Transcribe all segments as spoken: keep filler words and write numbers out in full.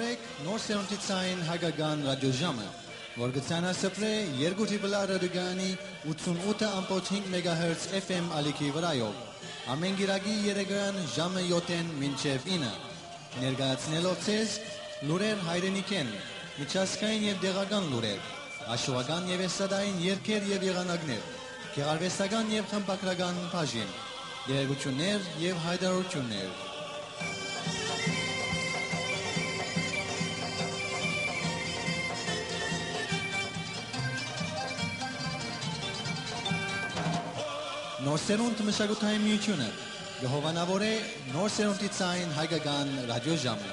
Նոր սերունդի ցային հայկական ռադիոժամը, որ կը ցանասպրէ երկու Triple R ռադիոկայանի ութսունութ ըմբոց հինգ մեգահերց F M ալիքի վրայով, ամէն կիրակի երեկոյեան ժամը յոթ մինչեւ ինը, ներկայացնելով ձեզ լուրեր հայրենիքէն, միջազգային եւ տեղական լուրեր, աշուական եւ էստրադային երգեր եւ եղանակներ, գեղարուեստական եւ խմբագրական բաժին, տեղեկութիւններ եւ յայտարարութիւններ։ Նոր սերունդ մշակութային միութիւնը կը հովանաւորէ նոր սերունդի ցային հայկական ռադիոժամը։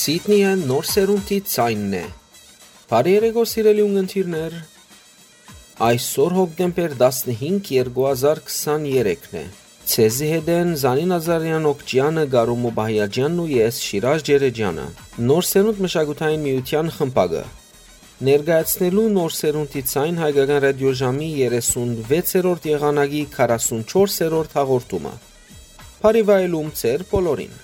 Սիդնիը նոր սերունդի ձայնն է։ Բարի երեկո, սիրելի ունգընտիրներ։ Այսօր հոկտեմբեր տասնհինգ, երկու հազար քսաներեքն է։ Ձեզի հետ են Զանին Ազարեան, Օկճեանը, Գարու Մուբահիաջյանն ու ես, Շիրաժ Ջերեջյանը։ Նոր սերունդ մշակութային միութեան խմբակը, ներկայացնելու նոր սերունդի ցայն հայկական ռադիոժամի երեսունվեցերորդ եղանակի քառասունչորսերորդ հաղորդումը։ Բարի վայելում ձեր բոլորին։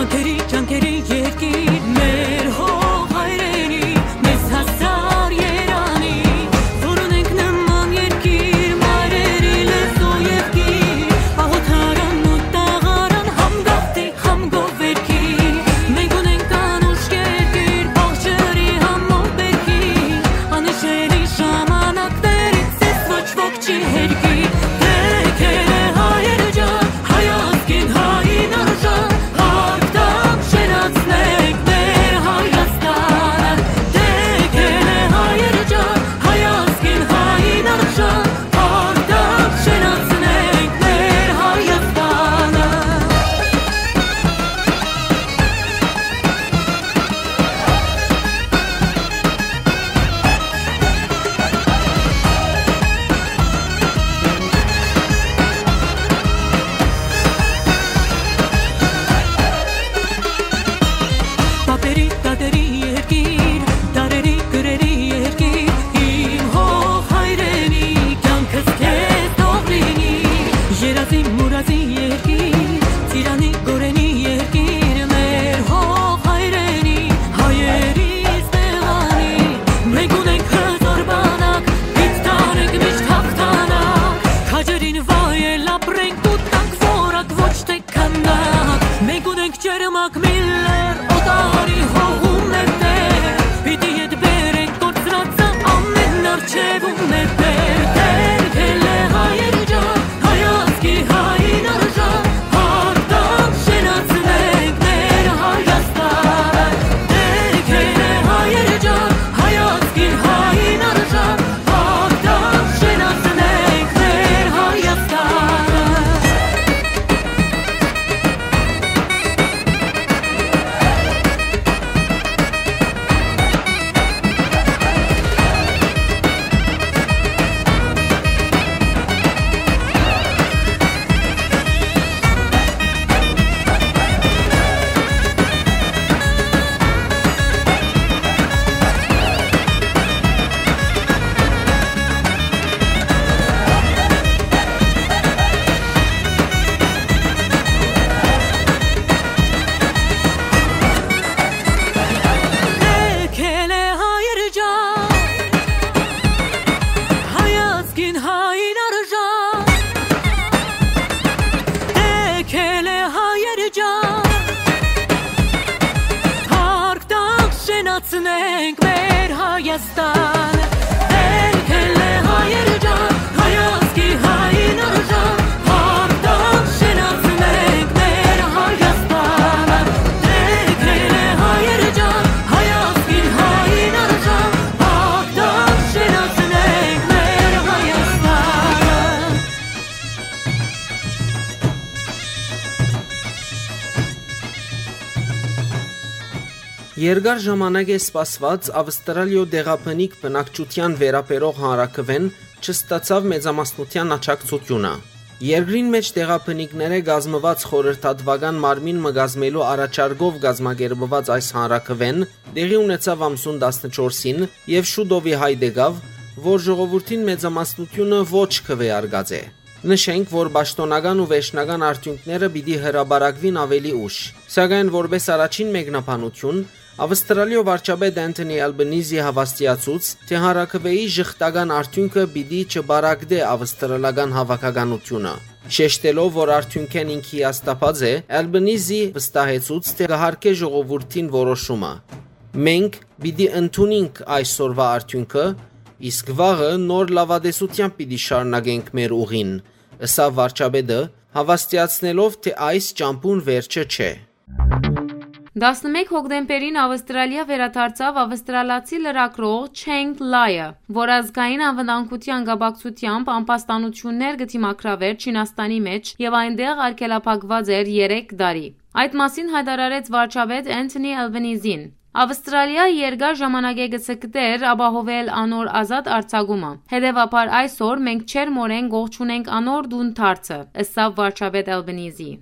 Ջանքերի, ջանքերի երկիր, մեր հող հայրենի, մեզ հասար երանի, որ ունենք նման երկիր, մայրերի լեզու և գիր, աղոթարան ու տաղարան, համ գաղթի, համ գովերքի։ Մենք ունենք անուշ երկիր, բաղ ջրի, համ մովերքի, անհիշելի ժամանակներից ես ոչ ոք չի հերքի, դեքել է հայեր ջան, հայ ազգին, հային արժան, արտամ շենացնենք մեր Հայաստանը, դեքել է հայեր ջան, հայ ազգին, հային արժան, արտամ շենացնենք մեր Հայաստանը։ Պապերի, տատերի երկիր, դարերի, կրերի երկիր, իմ հող հայրենի, կյանքս քեզ թող լինի, երազի, մուրազի երկիր, ծիրանի, գորենի երկիր, մեր հող հայրենի, հայերիս տեղանի, մենք ունենք հզոր բանակ, պիտի տանենք միշտ հաղթանակ, քաջերին վայել ապրենք ու տանք որակ, ոչ թե քանակ, մենք ունենք ջերմակ միլլեր, օտարի հողում մեր տեղ, պիտի ետ բերենք կորցրածը ամեն արջևում մեր տեղ, դեր գելե հայեր ջան, հայ ազգի հային արժան, արտամ շենացնենք մեր Հայաստանը, դեր գելե հայեր ջան, հայ ազգի հային արժան, արտամ շենացնենք մեր Հայաստանը։ Քելե հայր ջան, հայ ազգին հային արժան, քելե հայր ջան, հարկ տանք, շենացնենք մեր Հայաստան, քելե հայր ջան, հայ ազգի հային արժան, հարկ տանք, շենացնենք մեր Հայաստանը, քելե հայր ջան, հայ ազգին հային արժան, Արտամ շենացնենք մեր Հայաստանը։ Երկար ժամանակ է սպասված Ավստրալիոյ տեղաբնիկ բնակչութեան վերաբերող հանրաքուէն չստացաւ մեծամասնութեան աջակցութիւնը։ Երկրին մէջ տեղաբնիկներէ կազմուած խորհրդատուական մարմին մը կազմելու առաջարկով կազմակերպուած այս հանրաքուէն տեղի ունեցաւ ամսուն տասնչորսին եւ շուտով ի հայտ եկաւ, որ ժողովուրդին մեծամասնութիւնը ոչ քուէարկած է։ Նշենք, որ պաշտօնական ու վերջնական արդիւնքները պիտի հրապարակուին աւելի ուշ, սակայն որպէս առաջին մեկնաբանութիւն, Ավստրալիոյ վարչապետ Անթոնի Ալբանիզի հաւաստիացուց, թէ հանրաքուէի ժխտական արդիւնքը պիտի չպարակտէ ավստրալական հաւաքականութիւնը։ Շեշտելով, որ արդիւնքէն ինք հիասթափած է, Ալբանիզի վստահեցուց, թէ կը հարգէ ժողովուրդին որոշումը։ «Մենք պիտի ընդունինք այսօրվա արդիւնքը, իսկ վաղը նոր լաւատեսութեամբ պիտի շարունակենք մեր ուղին», ըսաւ վարչապետը, հաւաստիացնելով, թէ այս ճամբուն վերջը չէ։ Տասնմէկ հոկտեմբերին Ավստրալիա վերադարձաւ ավստրալացի լրագրող Չենգ Լայը, որ ազգային անվտանգութեան կապակցութեամբ ամբաստանութիւններ կը դիմագրավէր Չինաստանի մէջ եւ այնտեղ արգելափակուած էր երեք տարի։ Այդ մասին յայտարարեց վարչապետ Անթոնի Ալբանիզին։ Ավստրալիա երկար ժամանակէ կը ձգտէր ապահովել անոր ազատ արձակումը։ Հետեւաբար այսօր մենք ջերմօրէն կողջունենք անոր տուն դարձը, ըսաւ վարչապետ Ալբանիզի։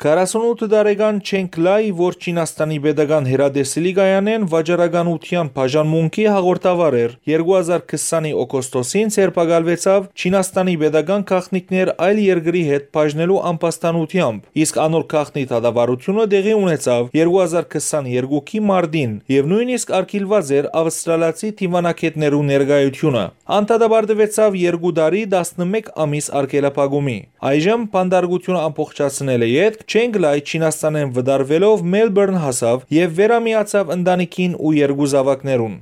Քառասունութ տարեկան Չենկ Լայ, որ Չինաստանի պետական հեռատեսիլի կայանէն վաճառականութեան բաժանմունքի հաղորդավար էր, երկու հազար քսանի օգոստոսին ձերբակալուեցաւ Չինաստանի պետական գաղտնիքներ այլ երկրի հետ բաժնելու ամբաստանութեամբ, իսկ անոր գաղտնի դատավարութիւնը տեղի ունեցաւ երկու հազար քսաներկուի մարտին եւ նոյնիսկ արգիլուած էր ավստրալիացի դիւանագէտներու ներկայութիւնը։ Ան դատապարտուեցաւ երկու տարի տասնմէկ ամիս արգելափակումի։ Այժմ բանտարկութիւնը ամբողջացնելէ ետք Չենկ Լայ Չինաստանէն վտարուելով Մելբուրն հասաւ եւ վերամիացաւ ընտանիքին ու երկու զաւակներուն։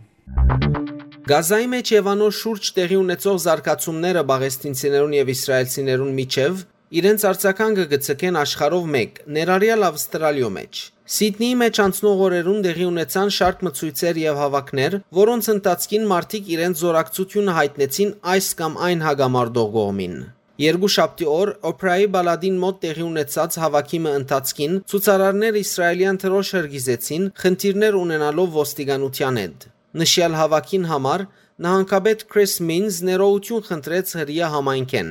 Գազայի մէջ եւ անոր շուրջ տեղի ունեցող զարգացումները պաղեստինցիներուն եւ իսրայելցիներուն միջեւ իրենց արձագանգը կը ցկեն աշխարհով մէկ, ներառեալ Ավստրալիոյ մէջ։ Սիդնիի մէջ անցնող օրերուն տեղի ունեցան շարք մը ցոյցեր եւ հաւաքներ, որոնց ընթացքին մարդիկ իրենց զօրակցութիւնը յայտնեցին այս կամ այն հակամարտող կողմին։ Երկու շաբթի օր Օփրայի պալատին մօտ տեղի ունեցած հաւաքի մը ընթացքին ցուցարարներ իսրայելեան դրօշ հրկիզեցին, խնդիրներ ունենալով ոստիկանութեան հետ։ Նշեալ հաւաքին համար նահանգապետ Քրիս Մինզ ներողութիւն խնդրեց հրեայ համայնքէն։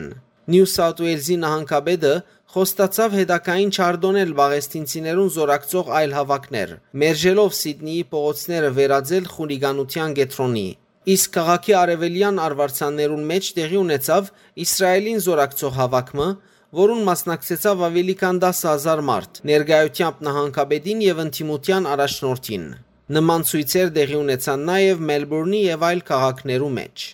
Նիու Սաութ Ուէյլզի նահանգապետը խոստացաւ հետագային չարտոնել պաղեստինցիներուն զօրակցող այլ հաւաքներ, մերժելով Սիդնիի փողոցները վերածել խուլիգանութեան կեդրոնի։ Իսկ քաղաքի արեւելեան արուարձաններուն մէջ տեղի ունեցաւ Իսրայելին զօրակցող հաւաք մը, որուն մասնակցեցաւ աւելի քան տասը հազար մարդ, ներկայութեամբ նահանգապետին եւ ընդդիմութեան առաջնորդին։ Նման ցոյցեր տեղի ունեցան նաեւ Մելբուրնի եւ այլ քաղաքներու մէջ։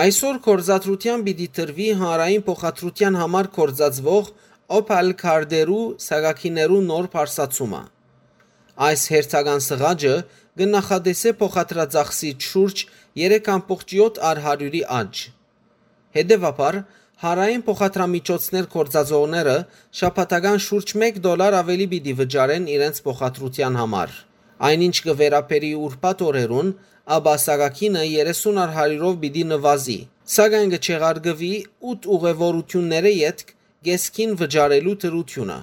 Այսօր գործադրութեան պիտի տրուի հանրային փոխադրութեան համար գործածուող Օփալ քարտերու սակագիներու նոր բարձրացումը։ Այս հերթական սղաճը կը նախատեսէ փոխադրածախսի շուրջ երեք ամբողջ յոթ առ հարիւրի աճ։ Հետեւաբար, հանրային փոխադրամիջոցներ գործածողները շաբաթական շուրջ մէկ դոլար աւելի պիտի վճարեն իրենց փոխադրութեան համար։ Այն ինչ կը վերաբերի ուրբաթ օրերուն, ապա սակագինը երեսուն առ հարիւրով պիտի նուազի, սակայն կը չեղարկուի ութ ուղեւորութիւններէ ետք կէսկին վճարելու դրութիւնը։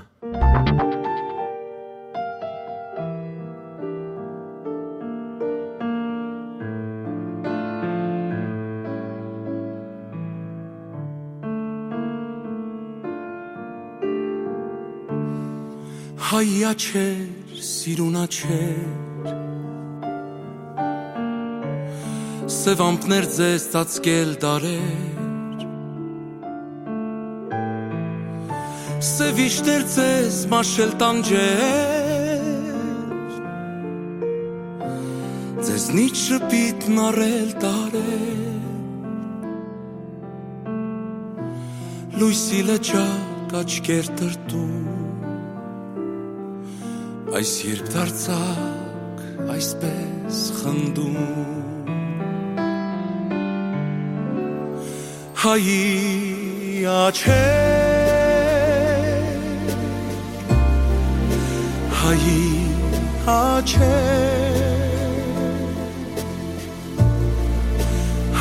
Հայ աչքեր, սիրուն աչքեր, սեւ ամպներ ձեզ ծածկել դարեր, սեւ իշտեր ձեզ մաշել տանջեր, ձեզնից շպիտ նարել տարեր, լոյսի լճակ աչքեր տրտում, այս երբ դարձակ այսպես խնդում։ Հայի աչքեր, հայի աչքեր,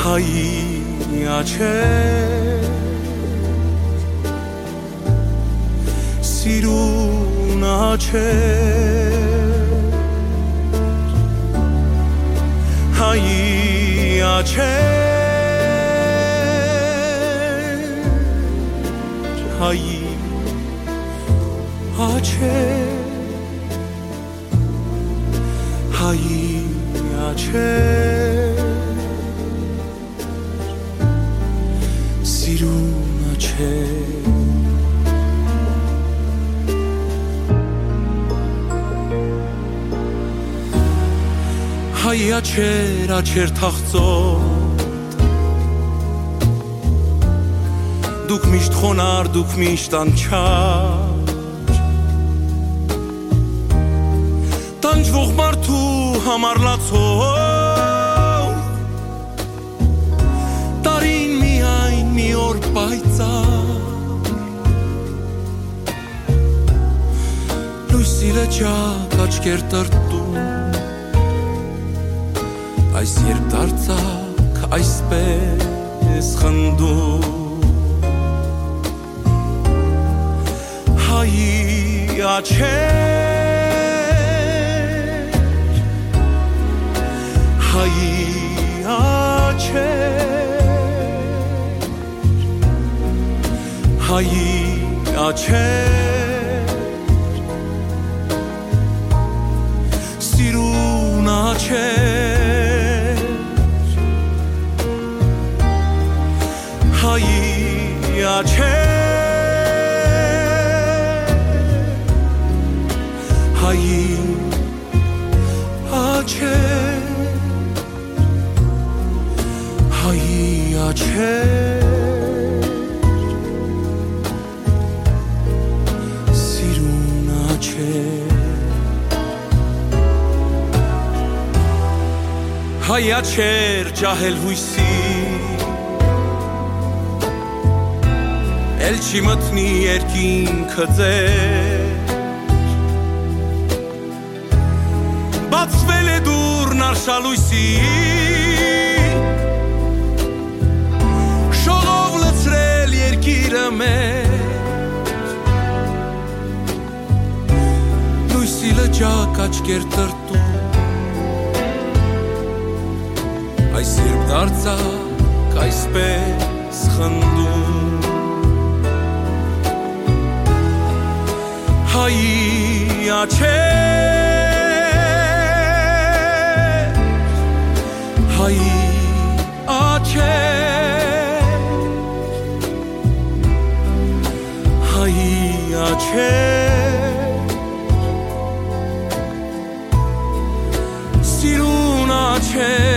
հայի աչքեր, սիրուն աչքեր, հայի աչքեր, հայի աչքեր, հայի աչքեր, սիրուն աչքեր։ Հայ աչքեր, աչքեր թախծոտ, դուք միշտ խոնար, դուք միշտ անչափ, տանջվող մարդու համար լացող, տարին միայն մի օր պայծառ, լոյսի լճակ աչքեր տրտում, այս երբ դարձակ այսպես խնդում։ Հայի աչքեր, հայի աչքեր, հայի աչքեր, Հայի աչեր, հայի աչեր, սիրուն աչեր։ Հայ աչեր ջահել յոյսի, էլ չի մտնի երկինքը ձեր։ Բացվել է դուռն արշալոյսի, շողով լցրել երկիրը մեր։ Լոյսի լճակ աչքեր տրտում, այս երբ դարձակ այսպես խնդում։ Հայի աչեր, հայի աչեր, հայի աչեր, սիրուն աչեր,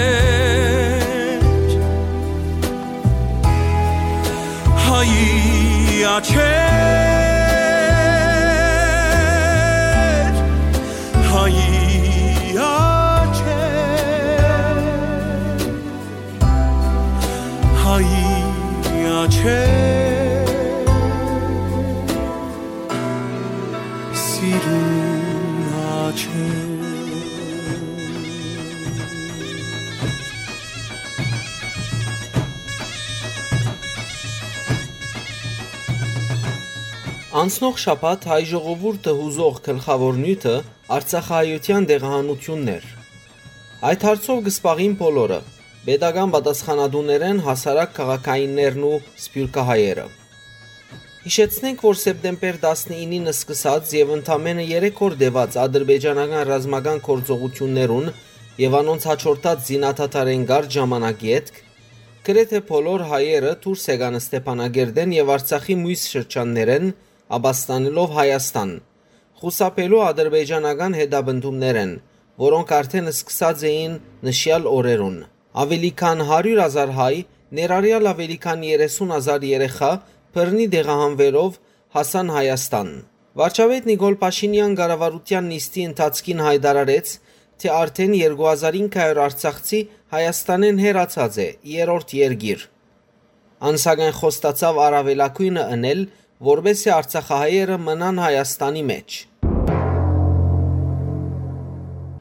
հայի աչեր, հայի աչեր, հայի աչեր, սիրուն աչեր։ Անցնող շաբաթ հայ ժողովուրդը յուզող գլխաւոր նիւթը արցախահայութեան տեղահանութիւնն էր։ Այդ հարցով կը զբաղին բոլորը, պետական պատասխանատուներէն հասարակ քաղաքայիններն ու սփիւռքահայերը։ Յիշեցնենք, որ սեպտեմբեր տասնինին սկսած եւ ընդամենը երեք օր տեւած ադրբեջանական ռազմական գործողութիւններուն եւ անոնց յաջորդած զինադադարէն կարճ ժամանակ ետք, գրեթէ բոլոր հայերը դուրս եկան Ստեփանագերտէն եւ Արցախի միւս շրջաններէն, ապաստանելով Հայաստան, խուսափելու ադրբեջանական հետապնդումներէն, որոնք արդէն սկսած էին նշեալ օրերուն։ Աւելի քան հարիւր հազար հայ, ներառեալ աւելի քան երեսուն հազար երեխայ, բռնի տեղահանուելով հասան Հայաստան։ Վարչապետ Նիկոլ Փաշինեան կառավարութեան նիստի ընթացքին յայտարարեց, թէ արդէն երկու հազար ինը հարիւր արցախցի Հայաստանէն հեռացած է երրորդ երկիր։ Ան, սակայն, խոստացաւ առաւելագոյնը ընել, որպէս զի արցախահայերը մնան Հայաստանի մէջ։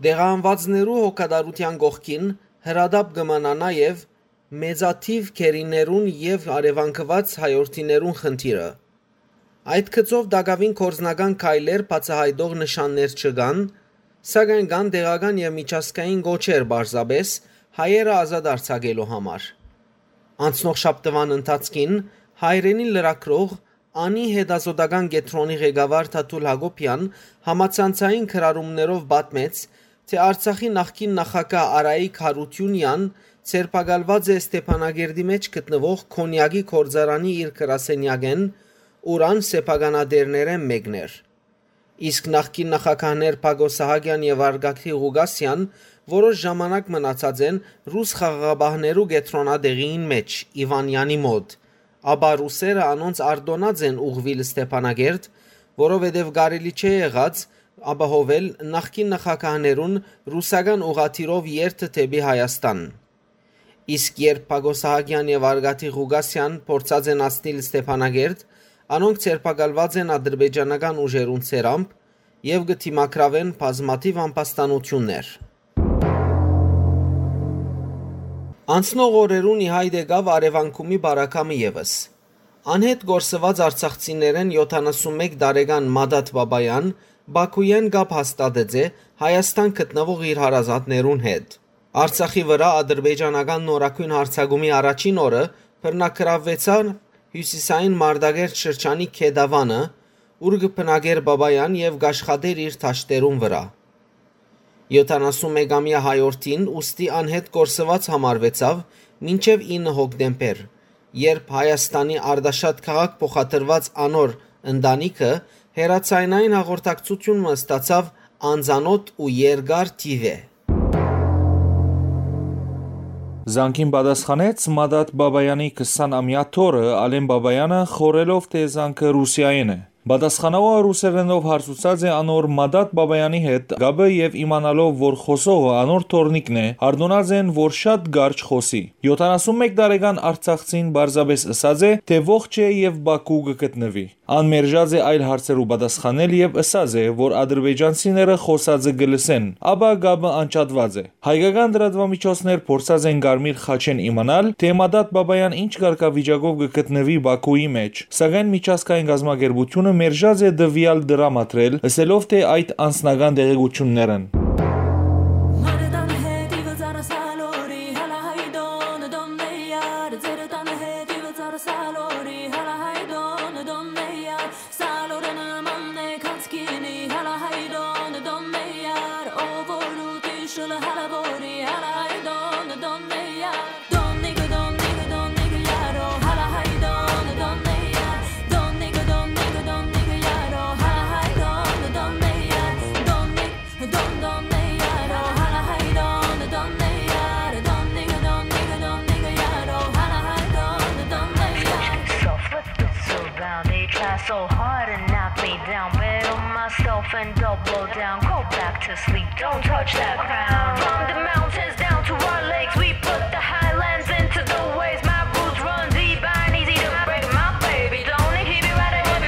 Տեղահանուածներու հոգատարութեան կողքին հրատապ կը մնայ նաեւ մեծաթիւ գերիներուն եւ առեւանգուած հայրենիներուն խնդիրը։ Այդ գծով տակաւին գործնական քայլեր բացայայտող նշաններ չկան, սակայն կան տեղական եւ միջազգային կոչեր պարզապէս հայերը ազատ արձակելու համար։ Անցնող շաբթուան ընթացքին հայրենի լրագրող Անի հետազոտական կեդրոնի ղեկավար Թաթուլ Յակոբեան համացանցային գրառումներով պատմեց, թէ Արցախի նախկին նախագահ Արայիկ Յարութիւնեան ձերբակալուած է Ստեփանագերտի մէջ գտնուող Քոնեակի գործարանի իր գրասենեակէն, ուր ան սեփականատէրներէն մէկն էր։ Իսկ նախկին նախագահներ Բակո Սահակեան եւ Արգակի Ղուկասեան որոշ ժամանակ մնացած են ռուս խաղաղապահներու կեդրոնատեղիին մէջ՝ Իվանեանի մօտ, ապա ռուսերը անոնց արտօնած են ուղղուիլ Ստեփանագերտ, որովհետեւ կարելի չէ եղած ապահովել նախկին նախագահներուն ռուսական ուղղաթիռով երթը դէպի Հայաստան։ Իսկ երբ Բակո Սահակեան եւ Արգատի Ղուկասեան փորձած են հասնիլ Ստեփանագերտ, անոնք ձերբակալուած են ադրբեջանական ուժերուն ցերամբ եւ կը դիմագրաւեն բազմաթիւ ամբաստանութիւններ։ Անցնող օրերուն ի հայտ եկաւ Արեւանկումի բարակամը եւս։ Անհետ կորսուած արցախցիներէն յոթանասունմեկ տարեկան Մադատ Բաբաեան Բաքուէն կապ հաստատած է Հայաստան գտնուող իր հարազատներուն հետ։ Արցախի վրայ ադրբեջանական նորագոյն յարձակումի առաջին օրը բռնագրաւուեցան հիւսիսային Մարտակերտ շրջանի Գետավանը, ուր կը բնակէր Բաբաեան եւ կ'աշխատէր իր դաշտերուն վրայ։ Յոթանասունմեկամեայ հայորդին ուստի անհետ կորսուած համարուեցաւ մինչեւ ինը հոկտեմբեր, երբ Հայաստանի Արտաշատ քաղաք փոխադրուած անոր ընտանիքը հեռաձայնային հաղորդակցութիւն մը ստացաւ անծանօթ ու երկար թիւ է։ Զանգին պատասխանեց Մադատ Բաբայանի քսան ամեայ թոռը՝ Ալեն Բաբայանը, խորհելով թէ զանգը Ռուսիայէն է։ Պատասխանողը ռուսերէնով հարցուցած է անոր Մադատ Բաբայանի հետ կապը եւ իմանալով, որ խօսողը անոր թոռնիկն է, արտոնած են, որ շատ կարճ խօսի։ Եթանասուն մէկ տարեկան արցախցին պարզապէս ըսած է, թէ ողջ է եւ Բաքու կը գտնուի։ Ան մերժած է այլ հարցերու պատասխանել եւ ըսած է, որ ադրբեջանցիները խօսածը կը լսեն, ապա կապը անջատուած է։ Հայկական լրատուամիջոցներ փորձած են Կարմիր խաչէն իմանալ, թէ Մադատ Բաբայան ինչ կարգավիճակով կը գտնուի Բաքուի մէջ, սակայն միջազգային կազմակերպութիւնը մերժած է տուեալ դրամատրել, ըսելով թէ այդ անձնական տեղեկութիւններ են։ Soft, let's get so loud. They try so hard and knock me down. Bet on myself and double down. Go back to sleep, don't touch that crown. From the mountains down to our lakes, we put the highlands into the waves. My roots run deep, I ain't easy to break. My baby don't need, he be riding with me.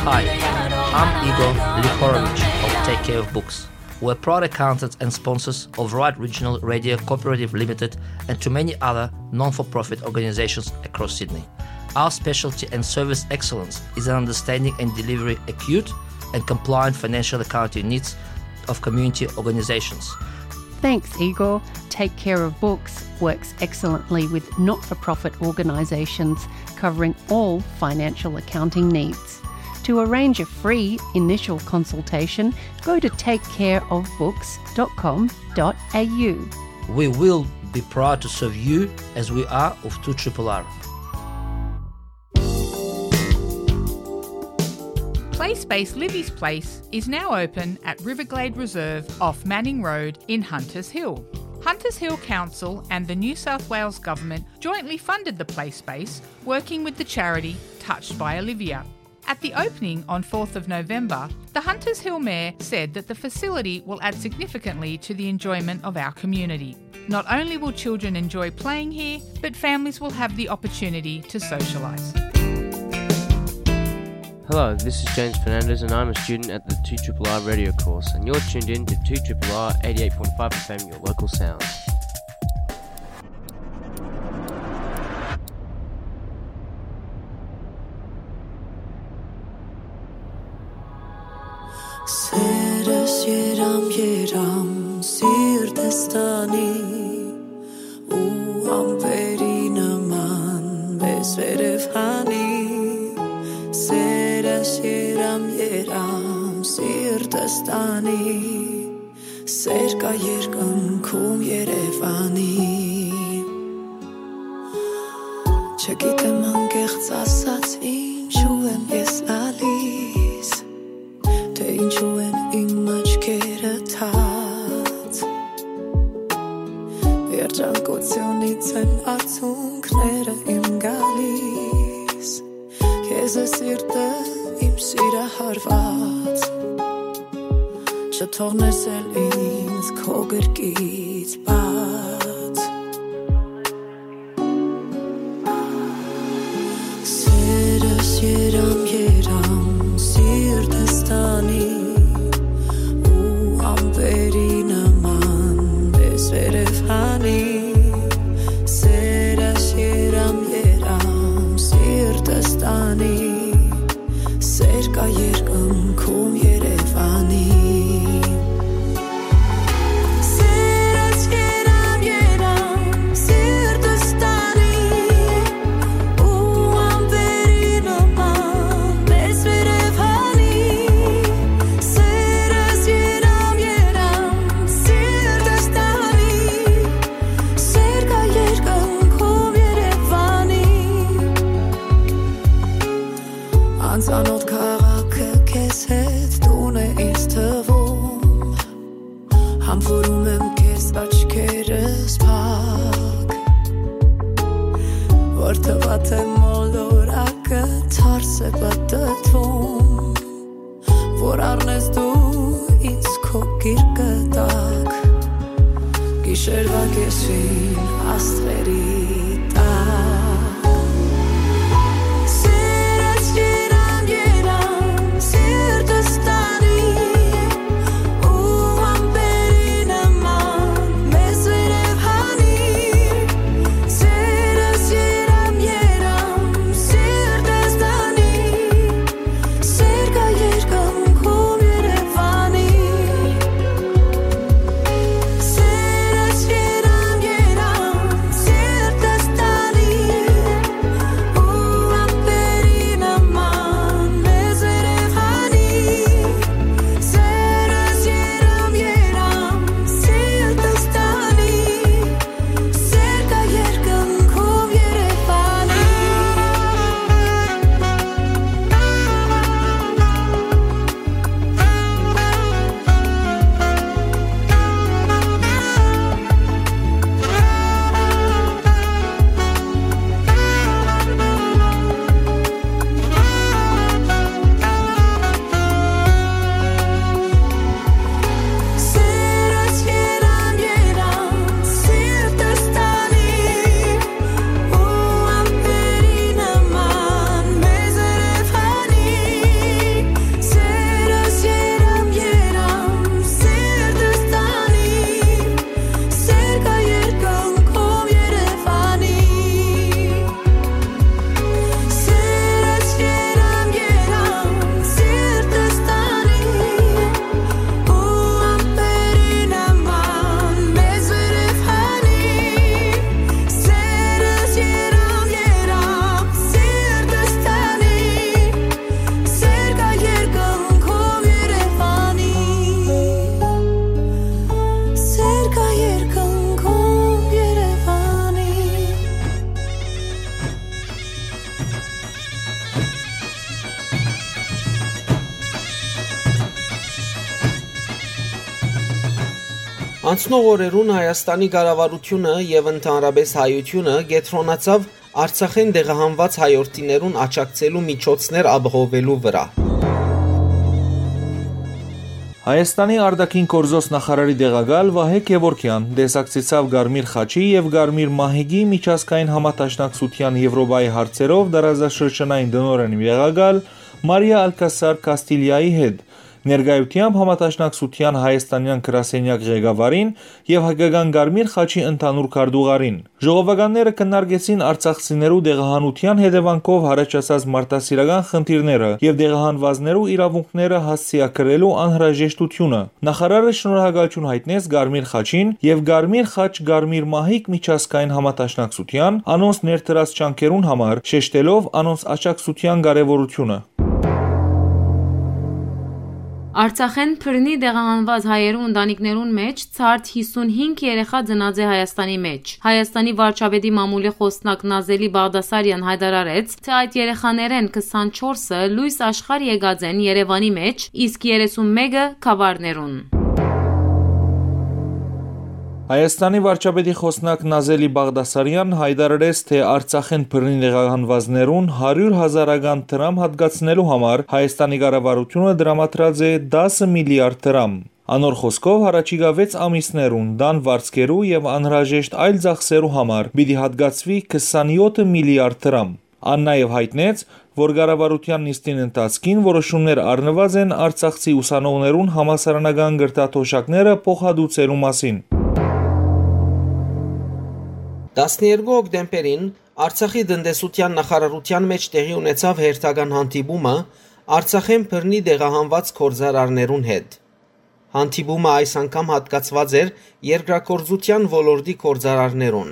Hi, I'm Igor Lihorovich of Take Care of Books. We're proud accountants and sponsors of Right Regional Radio Cooperative Limited and to many other non-for-profit organizations across Sydney. Our specialty and service excellence is in understanding and delivery acute and compliant financial accounting needs of community organizations. Thanks, Igor. Take Care of Books works excellently with not for profit organisations, covering all financial accounting needs. To arrange a free initial consultation, go to take care of books dot com dot a u. We will be proud to serve you as we are of two triple R. Play Space Livy's Place is now open at Riverglade Reserve off Manning Road in Hunters Hill. Hunters Hill Council and the New South Wales Government jointly funded the play space, working with the charity Touched by Olivia. At the opening on fourth of November, the Hunters Hill Mayor said that the facility will add significantly to the enjoyment of our community. Not only will children enjoy playing here, but families will have the opportunity to socialise. Hello, this is James Fernandez, and I'm a student at the two triple R radio course, and you're tuned in to two triple R eighty-eight point five F M, your local sound. Սերս երամ, երամ, սիրտս տանի, ու ամպերի նման մեզ վերև հանի։ Սերս երամ, երամ, սիրտս տանի, սեր կայ երկնքում Երեւանի։ Չգիտեմ անկեղծ ասած ինչու եմ ես լալիս, թէ ինչու են իմ աչքերը թաց։ Երջանկութիւնից են արցունքները իմ գալիս, քեզ է սիրտը իմ սիրահարված, չթողնես էլ ինձ քո գրկից բաց։ Սերս երամ, երամ, սիրտս տանի, ու ամպերի նման մեզ վերև հանի։ Սերս երամ, երամ, սիրտս տանի, սեր կայ երկնքում Երեւանի։ Սերս երամ, երամ, սիրտս տանի, ու ամպերի նման մեզ վերև հանի։ Սերս երամ, երամ, սիրտս տանի, սեր կայ երկնքում Երեւանի։ Անծանոթ քաղաքը քեզ հետ տուն է ինձ թվում, համբուրում եմ քեզ աչքերս փակ, որ թվա թե մոլորակը թարս է պտտվում, որ առնես դու ինձ քո գիրկը տակ, գիշերվա կեսին աստղերի տակ։ Սերս երամ, երամ, սիրտս տանի, ու ամպերի նման մեզ վերև հանի։ Սերս երամ, երամ, սիրտս տանի, սեր կայ երկնքում Երեւանի։ Սերս երամ, երամ, սիրտս տանի, ու ամպերի նման մեզ վերև հանի։ Սերս երամ, երամ, սիրտս տանի, սեր կայ երկնքում Երեւանի։ Սերս երամ, երամ, սիրտս տանի, ու ամպերի նման մեզ երևանի։ Սերս երամ, երամ, սիրտս տանի, սեր կայ երկնքում Երեւանի։ Սերս երամ, երամ, սիրտս տանի, ու ամպերի նման մեզ վերև հանի։ Սերս երամ, երամ, սիրտս տանի, սեր կայ երկնքում Երեւանի։ Սեր կայ երկնքում Երեւանի։ Անցնող օրերուն Հայաստանի կառավարութիւնը եւ ընդհանրապէս հայութիւնը կեդրոնացաւ Արցախէն տեղահանուած հայորդիներուն աջակցելու միջոցներ ապահովելու վրայ։ Հայաստանի արտաքին գործոց նախարարի տեղակալ Վահէ Գեւորգեան տեսակցեցաւ Կարմիր խաչի եւ Կարմիր մահիկի միջազգային համադաշնակցութեան Եւրոպայի հարցերով տարածաշրջանային տնօրէնի տեղակալ Մարիա Ալքասար Կաստիլիայի հետ, ներկայութեամբ համադաշնակցութեան հայաստանեան գրասենեակ ղեկավարին եւ Հայկական Կարմիր խաչի ընդհանուր քարտուղարին։ Ժողովականները քննարկեցին արցախցիներու տեղահանութեան հետեւանքով յառաջացած մարդասիրական խնդիրները եւ տեղահանուածներու իրաւունքները հասցեագրելու անհրաժեշտութիւնը։ Նախարարը շնորհակալութիւն յայտնեց Կարմիր խաչին եւ Կարմիր խաչ Կարմիր մահիկ միջազգային համադաշնակցութեան անոնց ներդրած ջանքերուն համար, շեշտելով անոնց աջակցութեան կարեւորութիւնը։ Արցախէն բռնի տեղահանուած հայերու ընտանիքներուն մէջ ցարդ հիսունհինգ երեխա ծնած է Հայաստանի մէջ։ Հայաստանի վարչապետի մամուլի խօսնակ Նազելի Բաղդասարեան յայտարարեց, թէ այդ երեխաներէն քսանչորսը լոյս աշխարհ եկած են Երեւանի մէջ, իսկ երեսունմէկը՝ գաւառներուն։ Հայաստանի վարչապետի խօսնակ Նազելի Բաղդասարեան յայտարարեց, թէ Արցախէն բռնի տեղահանուածներուն հարիւր հազարական դրամ յատկացնելու համար Հայաստանի կառավարութիւնը տրամադրած է տասը միլիարդ դրամ։ Անոր խօսքով, յառաջիկայ վեց ամիսներուն տան վարձքերու եւ անհրաժեշտ այլ ծախսերու համար պիտի յատկացուի քսանեօթ միլիարդ դրամ։ Ան նաեւ յայտնեց, որ կառավարութեան նիստին ընթացքին որոշումներ առնուած են արցախցի ուսանողներուն համալսարանական կրթաթոշակները փոխհատուցելու մասին։ Տասներկու հոկտեմբերին Արցախի տնտեսութեան նախարարութեան մէջ տեղի ունեցաւ հերթական հանդիպումը Արցախէն բռնի տեղահանուած գործարարներուն հետ։ Հանդիպումը այս անգամ յատկացուած էր երկրագործութեան ոլորտի գործարարներուն։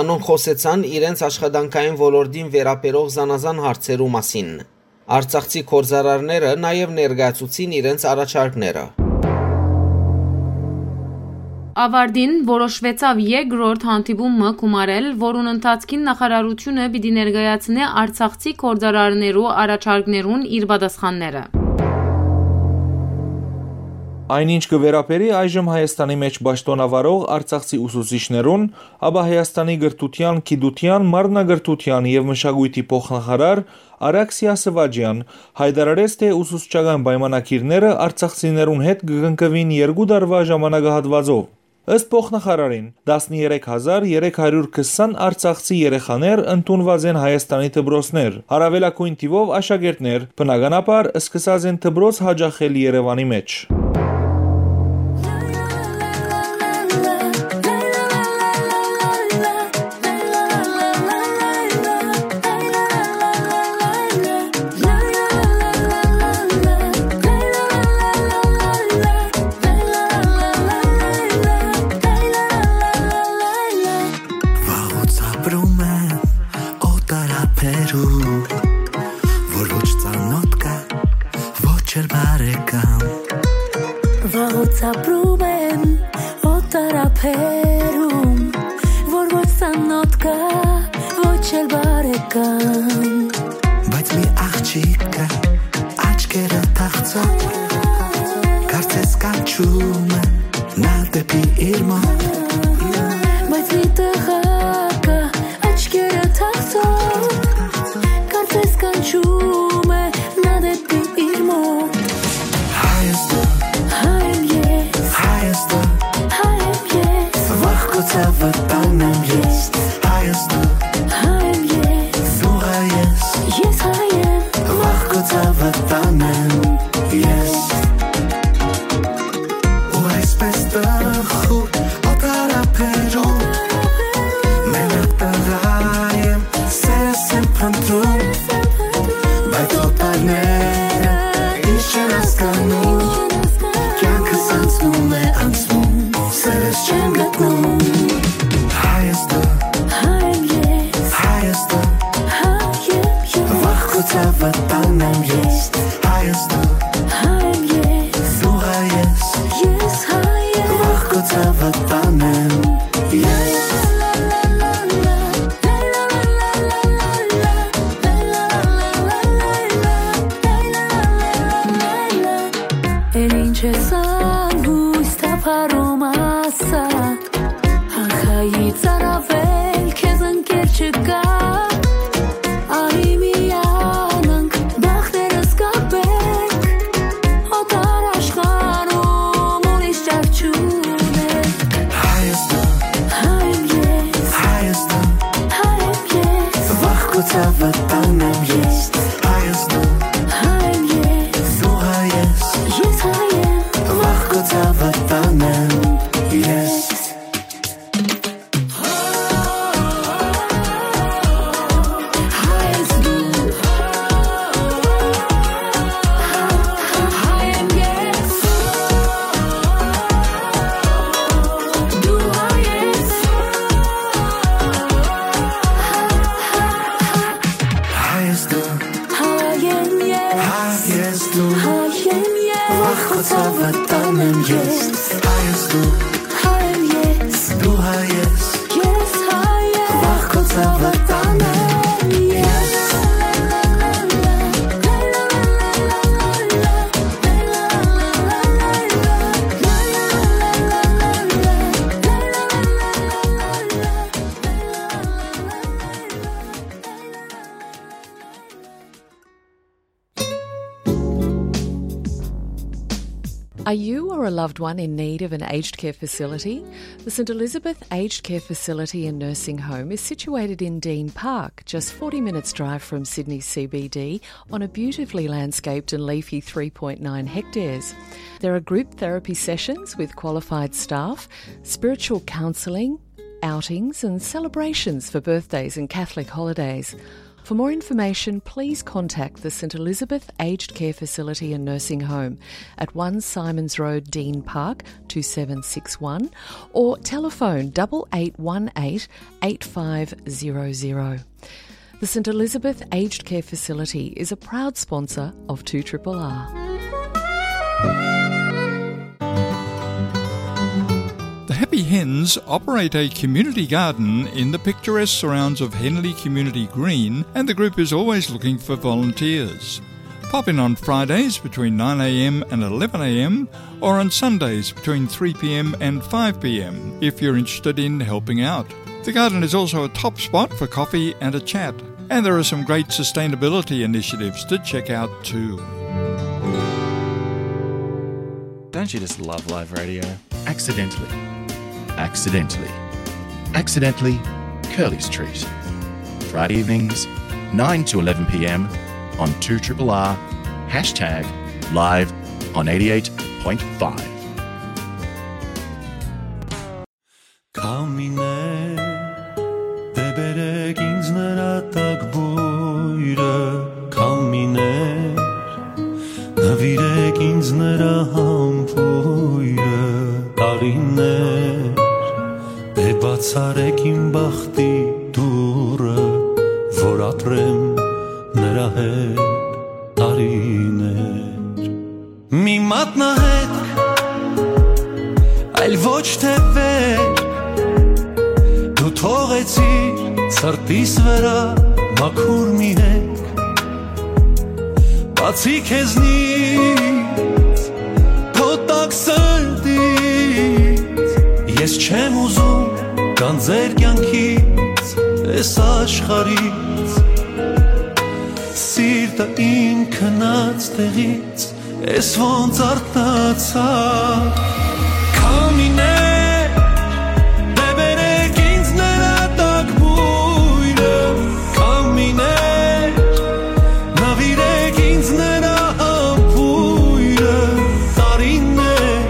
Անոնք խօսեցան իրենց աշխատանքային ոլորտին վերաբերող զանազան հարցերու մասին։ Արցախցի գործարարները նաեւ ներկայացուցին իրենց առաջարկները։ Ավարտին որոշուեցաւ երկրորդ հանդիպումը գումարել, որուն ընթացքին նախարարութիւնը պիտի ներկայացնէ արցախցի գործարարներու առաջարկներուն իր պատասխանները։ Այն ինչ կը վերաբերի այժմ Հայաստանի մէջ պաշտօնավարող արցախցի ուսուցիչներուն, ապա Հայաստանի կրթութեան, գիտութեան, մարմնակրթութեան եւ մշակոյթի փոխնախարար Արաքսիա Սվաճեան յայտարարեց, թէ ուսուցչական պայմանագիրները արցախցիներուն հետ կը կնքուին երկու տարուայ ժամանակահատուածով։ Ըստ փոխնախարարին, տասներեք հազար երեք հարիւր քսան արցախցի երեխաներ ընդունուած են Հայաստանի դպրոցներ, առաւելագոյն թիւով աշակերտներ, բնականաբար, սկսած են դպրոց յաճախել Երեւանի մէջ։ Վաղուց ապրում եմ օտար ափերում, որ ոչ ծանոթ կա, ոչ էլ բարեկամ։ Վաղուց ապրում եմ օտար ափերում, որ ոչ ծանոթ կա, ոչ էլ բարեկամ։ Բայց մի աղջիկ կա, աչքերը թախծող, կարծես կանչում է նա դեպի իր մոտ։ Բայց մի տղա կա, աչքերը թախծող, կարծես կանչում է նա դեպի իր մոտ։ Հայաստան, հայ եմ ես, Հայաստան, հայ եմ ես, վախ քո ցավը տանեմ ես։ Հայաստան, հայ եմ ես, դու հայ ես, ես հայ եմ, վախ քո ցավը տանեմ ես։ Ու այսպես տխուր օտար ափերում, մենակ տղա եմ, սերս եմ փնտրում, բայց օտարները ինչ չեն հասկանում, կյանքս անցնում է, անցնում, սերս չեմ գտնում։ Հայաստան, հայ եմ ես, Հայաստան, հայ եմ ես, վախ քո ցավը տանեմ ես, Հայաստան, Քո ցաւը տանեմ ես։ Հայ ես դու, հայ եմ ես, դու հայ ես, ես հայ եմ։ Վաղ քո ցաւը տանեմ ես։ Are you or a loved one in need of an aged care facility? The St Elizabeth Aged Care Facility and Nursing Home is situated in Dean Park, just forty minutes' drive from Sydney C B D, on a beautifully landscaped and leafy three point nine hectares. There are group therapy sessions with qualified staff, spiritual counselling, outings and celebrations for birthdays and Catholic holidays. For more information, please contact the St Elizabeth Aged Care Facility and Nursing Home at one Symonds Road, Dean Park, two seven six one, or telephone double eight one eight eight five zero zero. The St Elizabeth Aged Care Facility is a proud sponsor of two triple R. The Happy Hens operate a community garden in the picturesque surrounds of Henley Community Green, and the group is always looking for volunteers. Pop in on Fridays between nine a.m. and eleven a.m., or on Sundays between three p.m. and five p.m. if you're interested in helping out. The garden is also a top spot for coffee and a chat, and there are some great sustainability initiatives to check out too. Don't you just love live radio? Accidentally. Accidentally. Accidentally, Curly's Treat. Friday evenings, nine to eleven p.m. on two triple R, hashtag live on eighty-eight point five. Քամիներ, դե բերեք ինձ նրա տակ բույրը, քամիներ, նվիրեք ինձ նրա համբույրը, տարիներ, դե բացարեք իմ բախտի դուռը, որ ապրեմ նրա հետ տարիներ։ Մի մատնահետք, այլ ոչ թե վեր, դու թողեցիր սրտիս վրա մաքուր մի հետք, բացի քեզնից, քո տաք սրտից, ես չեմ ուզում գանձեր կյանքից, այս աշխարհից, սիրտը իմ քնած տեղից, ես ոնց արթնացա։ Քամիներ, դե բերեք ինձ նրա տակ բույրը, քամիներ, նվիրեք ինձ նրա համբույրը, տարիներ,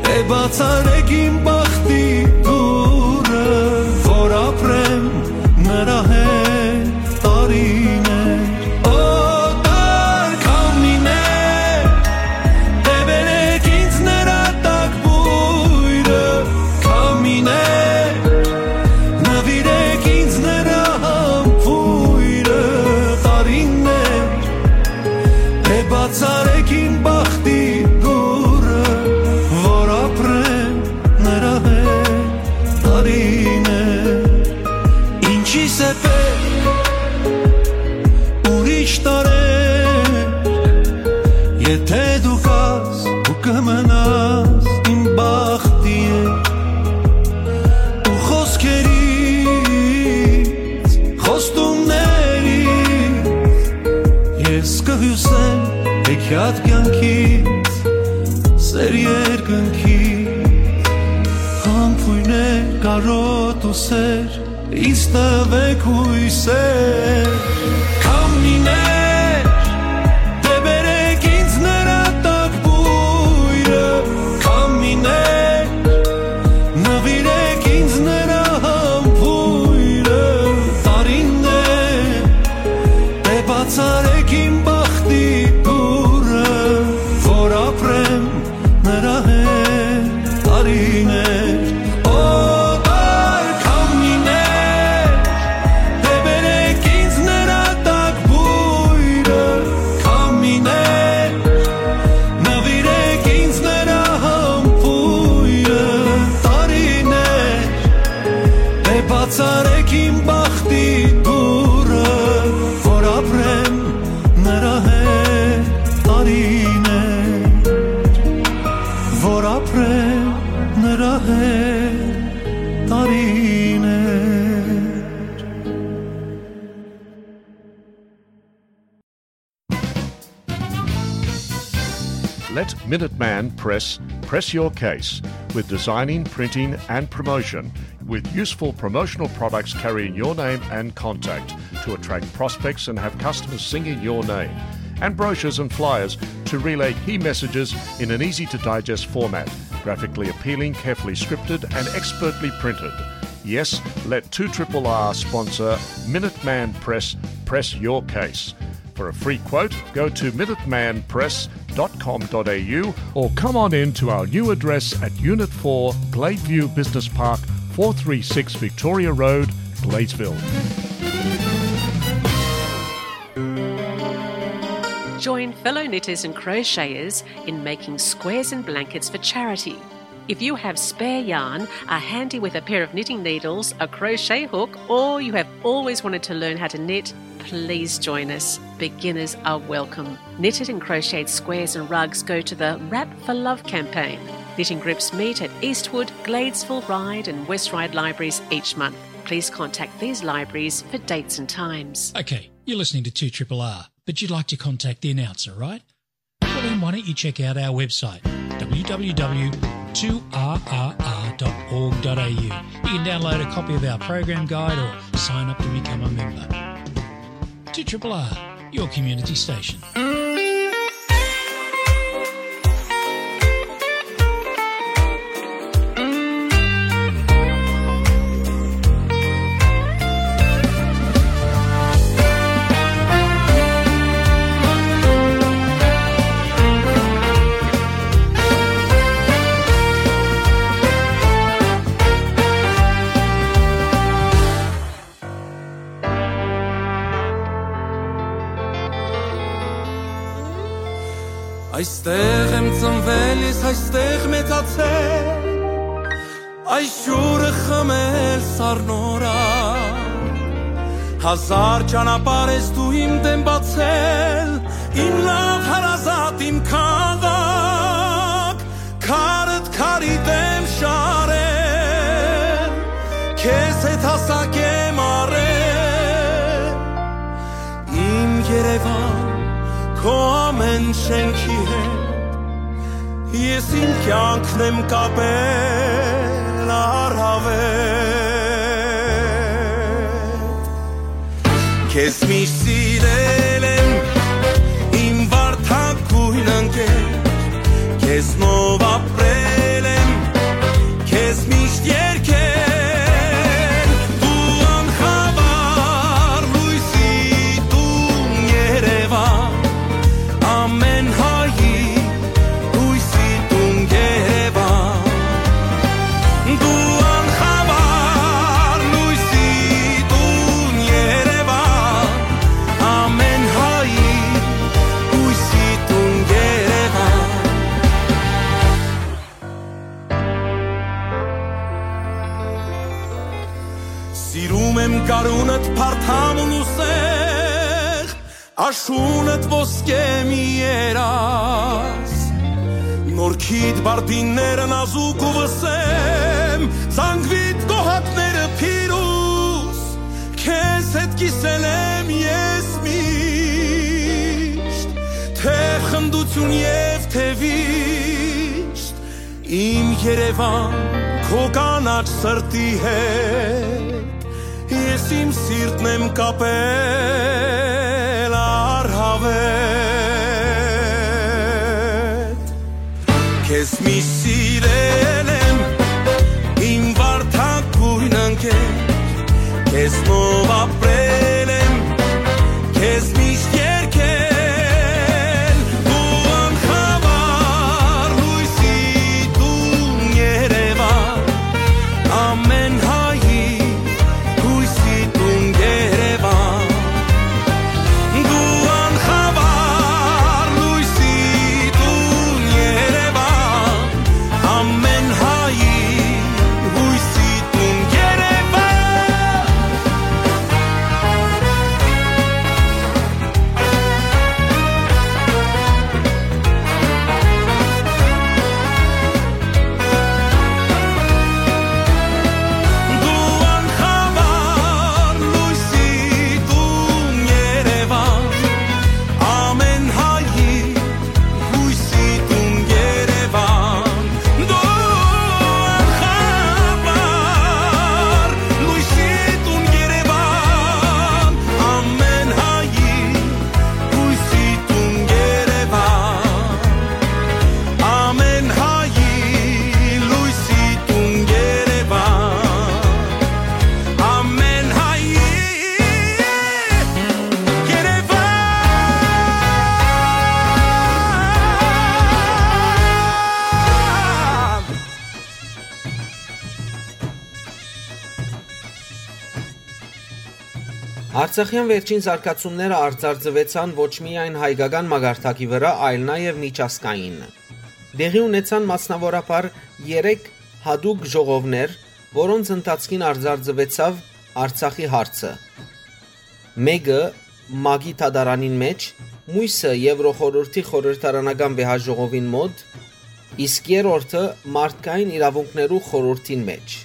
դե բացարեք իմ բախտի դուռը, որ ապրեմ նրա հետ տարիներ, օտար քամիներ, դե բերեք ինձ նրա տակ բույրը, քամիներ, նվիրեք ինձ նրա համբույրը, տարիներ, դե բացարեք իմ բախտի դուռը, որ ապրեմ նրա հետ տարիներ։ Ինչի՞ս է պետք ուրիշ տարեր, եթե դու կաս ու կմնաս իմ բախտի հետ, ու խոսքերից, խոստումներից ես կհիուսեմ հեքիաթ կյանքից, սեր երկնքից, համբույրներ կարոտ ու սեր, ինձ տվեք հույսեր, քամիներ, դե բերեք ինձ նրա տակ բույրը, քամիներ, նվիրեք ինձ նրա համբույրը, տարիներ, դե բացարեք իմ բախտի դուռը, որ ապրեմ նրա հետ տարիներ, օտար քամիներ, դե բերեք ինձ նրա տակ Let Minuteman Press press your case with designing, printing, and promotion, with useful promotional products carrying your name and contact to attract prospects and have customers singing your name, and brochures and flyers to relay key messages in an easy to digest format, graphically appealing, carefully scripted, and expertly printed. Yes, let two triple R sponsor Minuteman Press press your case. For a free quote, go to minuteman press dot com dot a u or come on in to our new address at Unit four, Gladeview Business Park, four three six Victoria Road, Gladesville. Join fellow knitters and crocheters in making squares and blankets for charity. If you have spare yarn, are handy with a pair of knitting needles, a crochet hook, or you have always wanted to learn how to knit, please join us. Beginners are welcome. Knitted and crocheted squares and rugs go to the Wrap for Love campaign. Knitting groups meet at Eastwood, Gladesville Ryde and West Ryde libraries each month. Please contact these libraries for dates and times. Okay, you're listening to two triple R, but you'd like to contact the announcer, right? Well, then why don't you check out our website, w w w two r r r dot org dot a u. You can download a copy of our program guide or sign up to become a member. Two triple R, your community station. Այստեղ եմ ծնվել ես, այստեղ մեծացել, այս ջուրը խմել սառնորայ։ Հազար ճանապարհ ես դու իմ դեմ բացել, իմ լաւ հարազատ, իմ քաղաք, քարդ քարի դեմ շարել, քեզ հետ հասակ եմ առել, իմ Երևան, քո ամեն շենքի հետ, ես իմ կյանքն եմ կապել առհավետ։ Քեզ միշտ սիրել եմ, իմ վարդագույն ընկեր, քեզնով ապրել եմ, քեզ միշտ երգել, դու անխավար լույսի տուն Երևան, ամեն հայի հույսի տուն Երևան, դու անխավար լույսի տուն Երևան, ամեն հայի հույսի տուն Երևան։ Սիրում եմ գարունդ, փարթամ ու սեղ, աշունդ ոսկե մի երազ, նորքիդ բարդինները նազուկ ու վսեմ, զանգվիդ կոհակները փիրուզ, քեզ հետ կիսել եմ ես միշտ, թէ խնդություն եւ թէ վիշտ, իմ Երևան, քո կանաչ սրտի հետ, ես իմ սիրտն եմ կապել առհավետ։ Քեզ միշտ սիրել եմ, իմ վարդագույն ընկեր, քեզնով ապրել եմ, քեզ միշտ երգել, դու անխավար լույսի տուն Երևան, ամեն հայի հույսի տուն Երևան, դու անխավար լույսի տուն Երևան, Արցախեան վերջին զարգացումները արձարծուեցան ոչ միայն հայկական մակարդակի վրայ, այլ նաեւ միջազգային։ Տեղի ունեցան մասնաւորաբար երեք յատուկ ժողովներ, որոնց ընթացքին արձարծուեցաւ Արցախի հարցը։ Մէկը՝ ՄԱԿ-ի դատարանին մէջ, միւսը՝ Եվրոխորհուրդի խորհրդարանական վեհաժողովին մօտ, իսկ երրորդը՝ մարդկային իրաւունքներու խորհուրդին մէջ։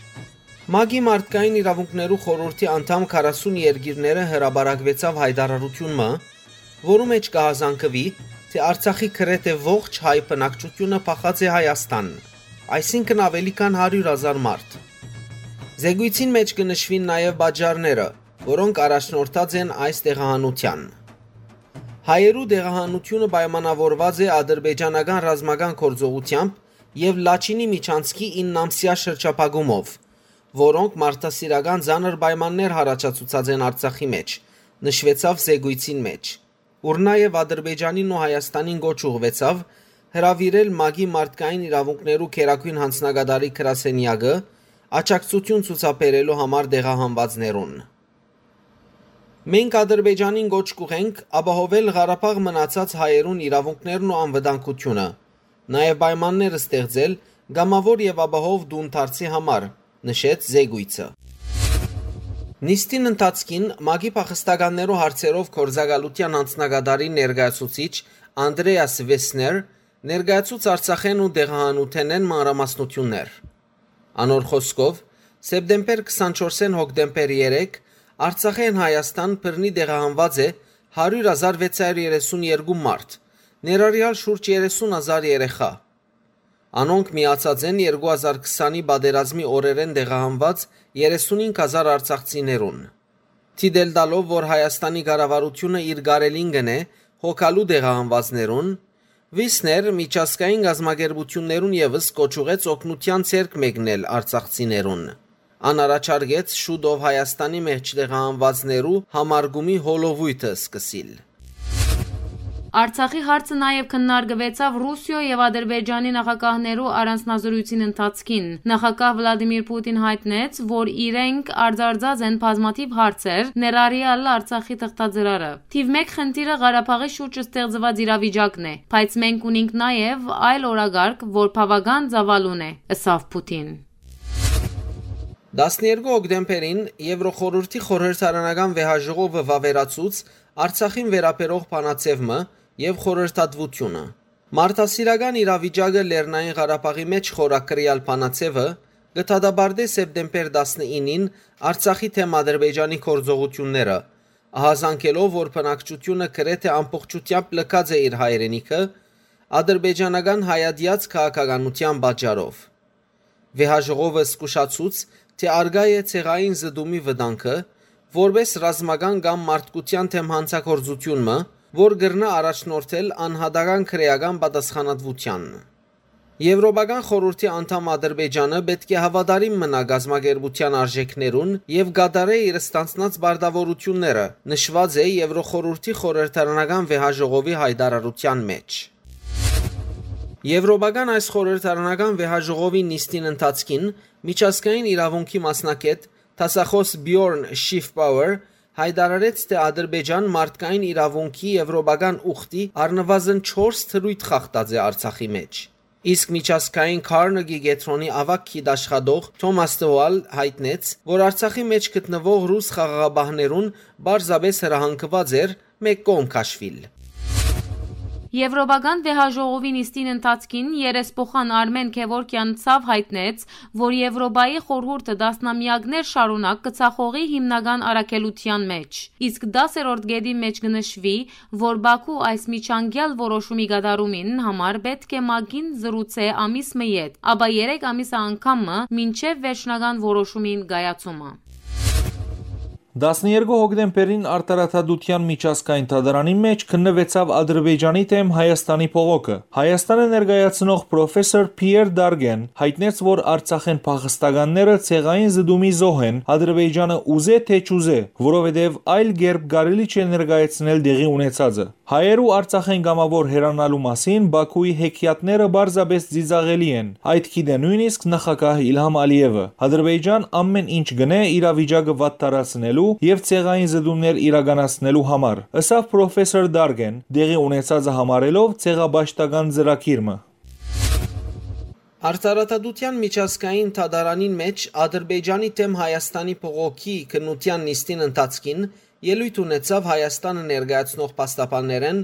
ՄԱԿ-ի մարդկային իրաւունքներու խորհուրդի անդամ քառասուն երկիրները հրապարակուեցաւ յայտարարութիւն մը, որու մէջ կը յազանգուի, թէ Արցախի գրեթէ ողջ հայ բնակչութիւնը փախած է Հայաստան, այսինքն՝ աւելի քան հարիւր հազար մարդ։ Զեկոյցին մէջ կը նշուին նաեւ պատճառները, որոնք առաջնորդած են այս տեղահանութեան։ Հայերու տեղահանութիւնը պայմանաւորուած է ադրբեջանական ռազմական գործողութեամբ եւ Լաչինի միջանցքի իննամսեայ շրջափակումով, որոնք մարդասիրական ծանր պայմաններ յառաջացուցած են Արցախի մէջ, նշուեցաւ զեկոյցին մէջ, ուր նաեւ Ադրբեջանին ու Հայաստանին կոչ ուղղուեցաւ հրաւիրել ՄԱԿ-ի մարդկային իրաւունքներու գերագոյն յանձնակատարի գրասենեակը աջակցութիւն ցուցաբերելու համար տեղահանուածներուն։ Մենք Ադրբեջանին կոչ կուղենք ապահովել Ղարաբաղ մնացած հայերուն իրաւունքներն ու անվտանգութիւնը, նաեւ պայմաններ ստեղծել կամաւոր եւ ապահով տուն դարձի համար, նշեց զեկոյցը։ Նիստին ընթացքին ՄԱԿ-ի փախստականներու հարցերով գործակալութեան յանձնակատարի ներկայացուցիչ Անդրեաս Վեսներ ներկայացուց Արցախէն ու տեղահանութենէն մանրամասնութիւններ։ Անոր խօսքով, սեպտեմբեր քսանչորսէն հոկտեմբեր երեք Արցախէն Հայաստան բռնի տեղահանուած է հարիւր հազար վեց հարիւր երեսուն երկու մարդ, ներառեալ շուրջ երեսուն հազար երեխայ։ Անոնք միացած են երկու հազար քսանի պատերազմի օրերէն տեղահանուած երեսունհինգ հազար արցախցիներուն։ Դիտել տալով, որ Հայաստանի կառավարութիւնը իր կարելին կ'ընէ հոգալու տեղահանուածներուն, Վիսներ միջազգային կազմակերպութիւններուն եւս կոչ ուղղեց օգնութեան ձեռք մեկնել արցախցիներուն։ Ան առաջարկեց շուտով Հայաստանի մէջ տեղահանուածներու համարկումի հոլովոյթը սկսիլ։ Արցախի հարցը նաեւ քննարկուեցաւ Ռուսիոյ եւ Ադրբեջանի նախագահներու առանձնազրոյցին ընթացքին։ Նախագահ Վլադիմիր Պուտին յայտնեց, որ իրենք արձարծած են բազմաթիւ հարցեր, ներառեալ Արցախի թղթածրարը։ Թիւ մէկ խնդիրը Ղարաբաղի շուրջ ստեղծուած իրավիճակն է, բայց մենք ունենք նաեւ այլ օրակարգ, որ բաւական ծաւալուն է, ըսաւ Պուտին։ Տասներկու հոկտեմբերին Եվրոխորհուրդի խորհրդարանական վեհաժողովը վաւերացուց Արցախին վերաբերող բանաձեւ մը եւ խորհրդատվութիւնը։ Մարդասիրական իրավիճակը Լեռնային Ղարաբաղի մէջ խորագրեալ բանաձեւը կը դատապարտէ սեպտեմբեր տասնինին Արցախի դէմ Ադրբեջանի գործողութիւնները, ահազանգելով, որ բնակչութիւնը գրեթէ ամբողջութեամբ լքած է իր հայրենիքը ադրբեջանական հայատեաց քաղաքականութեան պատճառով։ Վեհաժողովը զգուշացուց, թէ առկայ է ցեղային զտումի վտանգը, որպէս ռազմական կամ մարդկութեան դէմ յանցագործութիւն մը, որ կրնայ առաջնորդել անհատական քրէական պատասխանատվութեան։ Եվրոպական խորհուրդի անդամ Ադրբեջանը պէտք է հաւատարիմ մնայ կազմակերպութեան արժէքներուն եւ կատարէ իր ստանձնած պարտաւորութիւնները, նշուած է Եվրոխորհուրդի խորհրդարանական վեհաժողովի յայտարարութեան մէջ։ Եվրոպական այս խորհրդարանական վեհաժողովի նիստին ընթացքին միջազգային իրաւունքի մասնագէտ դասախօս Բիորն Շիֆպաուեր յայտարարեց, թէ Ադրբեջան մարդկային իրաւունքի եվրոպական ուխտի առնուազն չորս դրոյթ խախտած է Արցախի մէջ։ Իսկ միջազգային Քարնեգի կեդրոնի աւագ գիտաշխատող Թոմաս Տուալ յայտնեց, որ Արցախի մէջ գտնուող ռուս խաղաղապահներուն պարզապէս հրահանգուած էր մէկ կողմ քաշուիլ։ Եվրոպական վեհաժողովի նիստին ընթացքին երեսփոխան Արմէն Գեւորգեան ցաւ յայտնեց, որ Եվրոպայի խորհուրդը տասնամեակներ շարունակ կը ցախողի հիմնական առաքելութեան մէջ, իսկ դասերորդ կետի մէջ կը նշուի, որ Բաքու այս միջանկեալ որոշումի կատարումին համար պէտք է ՄԱԿ-ին զրուցէ ամիս մը յետ, ապա երեք ամիսը անգամ մը մինչեւ վերջնական որոշումին կայացումը։ Տասներկու հոկտեմբերին Արդարադատության միջազգային դատարանի մէջ քննուեցաւ Ադրբեջանի դէմ Հայաստանի բողոքը։ Հայաստանը ներկայացնող պրոֆեսոր Փիեր Դարգեն յայտնեց, որ Արցախէն փախստականները ցեղային զտումի զոհ են, Ադրբեջանը ուզէ թէ չուզէ, որովհետեւ այլ կերպ կարելի չէ ներկայացնել տեղի ունեցածը։ Հայերու Արցախէն կամաւոր հեռանալու մասին Բաքուի հեքիաթները պարզապէս ծիծաղելի են։ Այդ գիտէ նոյնիսկ նախագահ Իլհամ Ալիեւը։ Ադրբեջան ամէն ինչ կ'ընէ իրավիճակը վատթարացնելու եւ ցեղային զտումներ իրականացնելու համար, ըսաւ պրոֆեսոր Դարգեն, տեղի ունեցածը համարելով ցեղապաշտական ծրագիր մը։ Արդարադատութեան միջազգային դատարանին մէջ Ադրբեջանի դէմ Հայաստանի բողոքի քննութեան նիստին ընթացքին ելոյթ ունեցաւ Հայաստանը ներկայացնող փաստաբաններէն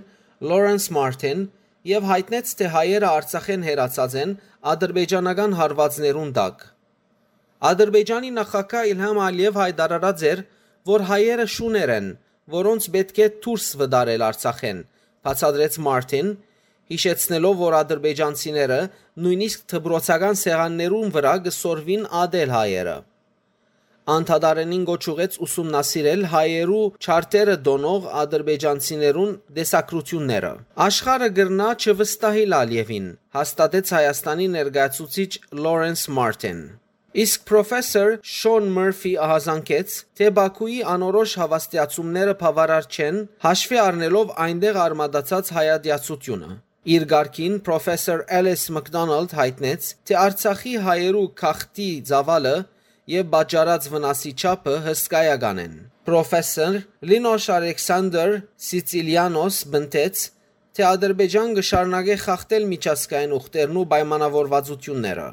Լորենս Մարտին եւ յայտնեց, թէ հայերը Արցախէն հեռացած են ադրբեջանական հարուածներուն տակ։ Ադրբեջանի նախագահ Իլհամ Ալիեւ յայտարարած էր, որ հայերը շուներ են, որոնց պէտք է դուրս վտարել Արցախէն, բացատրեց Մարտին, յիշեցնելով, որ ադրբեջանցիները նոյնիսկ դպրոցական սեղաններուն վրայ կը սորվին ատել հայերը։ Ան դատարանին կոչ ուղղեց ուսումնասիրել հայերու չարդերը տոնող ադրբեջանցիներուն տեսակցութիւնները։ Աշխարհը կրնայ չվստահիլ Ալիևին, հաստատեց Հայաստանի ներկայացուցիչ Լորենս Մարտին։ Իսկ պրոֆեսոր Շոն Մըրֆի ահազանգեց, թէ Բաքուի անորոշ հաւաստիացումները բաւարար չեն, հաշուի առնելով այնտեղ արմատացած հայատյացութիւնը։ Իր կարգին պրոֆեսոր Էլիս Մակդոնալդ յայտնեց, թէ Արցախի հայերու գաղթի ծաւալը եւ պատճառած վնասի չափը հսկայական են։ Պրոֆեսոր Լինոշ Ալեքսանդր Սիցիլիանոս պնդեց, թէ Ադրբեջան կը շարունակէ խախտել միջազգային ուխտերն ու պայմանաւորուածութիւնները։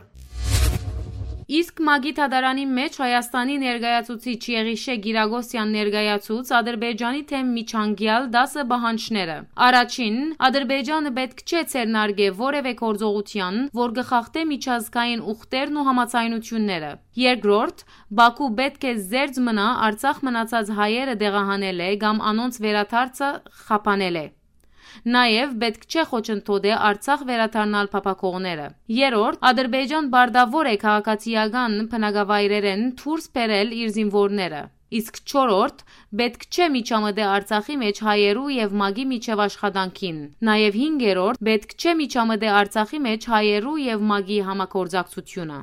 Իսկ ՄԱԿ-ի դատարանի մէջ Հայաստանի ներկայացուցիչ Եղիշե Կիրակոսեան ներկայացուց Ադրբեջանի դէմ միջանկեալ տասը պահանջները։ Առաջին, Ադրբեջանը պէտք չէ ձեռնարկէ որեւէ գործողութեան, որ կը խախտէ միջազգային ուխտերն ու համաձայնութիւնները։ Երկրորդ, Բաքու պէտք է զերծ մնայ Արցախ մնացած հայերը տեղահանելէ կամ անոնց վերադարձը խափանելէ։ Նաեւ պէտք չէ խոչընդոտէ Արցախ վերադառնալ փափաքողները։ Երրորդ, Ադրբեջան պարտաւոր է քաղաքացիական բնակավայրերէն դուրս բերել իր զինուորները։ Իսկ չորրորդ, պէտք չէ միջամտէ Արցախի մէջ հայերու եւ ՄԱԿ-ի միջեւ աշխատանքին։ Նաեւ հինգերորդ, պէտք չէ միջամտէ Արցախի մէջ հայերու եւ ՄԱԿ-ի համագործակցութիւնը։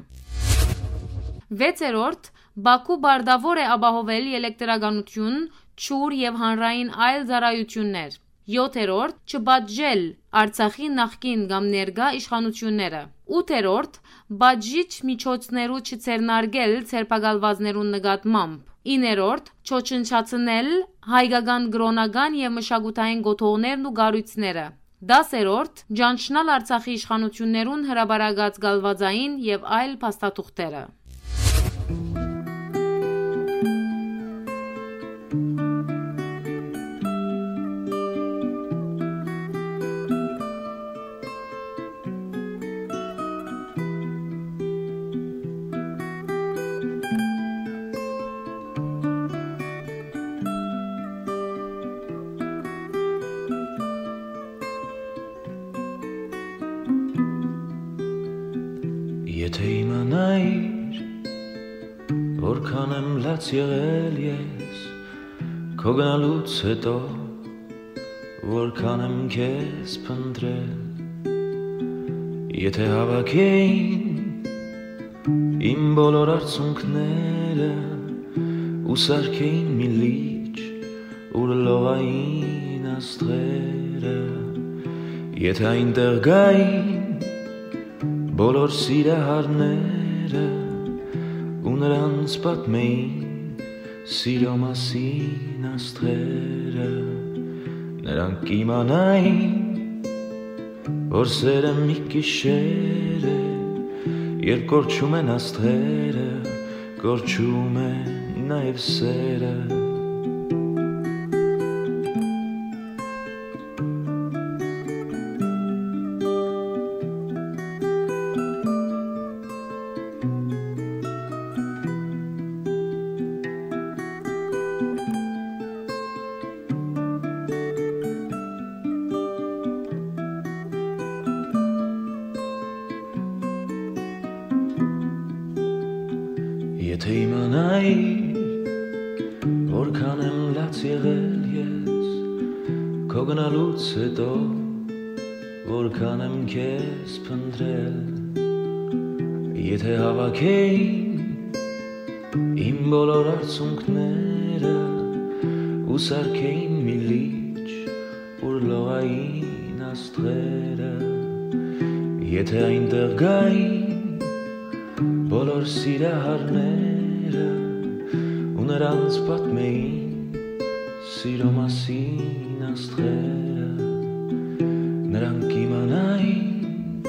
Վեցերորդ, Բաքու պարտաւոր է ապահովել ելեկտրականութիւն, ջուր եւ հանրային այլ ծառայութիւններ։ Յոթերորդ, չպատժել Արցախի նախկին կամ ներկայ իշխանութիւնները։ Ութերորդ, պատժիչ միջոցներու չձեռնարկել ձերբակալուածներուն նկատմամբ։ Իններորդ, չոչնչացնել հայկական կրօնական եւ մշակութային կոթողներն ու կառոյցները։ Դասերորդ, ճանչնալ Արցախի իշխանութիւններուն հրապարակած կալվածային եւ այլ փաստաթուղթերը։ Եթէ իմանայիր, որքան եմ լաց եղել ես քո գնալուց հետո, որքան եմ քեզ փնտրել, եթէ հավաքեին իմ բոլոր արցունքները ու սարքեին մի լիճ, ուր լողային աստղերը, եթէ այնտեղ գային բոլոր սիրահարները ու նրանց պատմեին սիրո մասին աստղերը, նրանք կիմանային, որ սերը մի գիշեր է, երբ կորչում են աստղերը, կորչում է նաև սերը։ Եթէ իմանայիր, որքան եմ լաց եղել ես քո գնալուց հետո, որքան եմ քեզ փնտրել, եթէ հավաքեին իմ բոլոր արցունքները ու սարքեին մի լիճ, ուր լողային աստղերը, եթէ այնտեղ գային բոլոր սիրահարները ու Նրանց պատմեին սիրո մասին աստղերը, նրանք իմանային,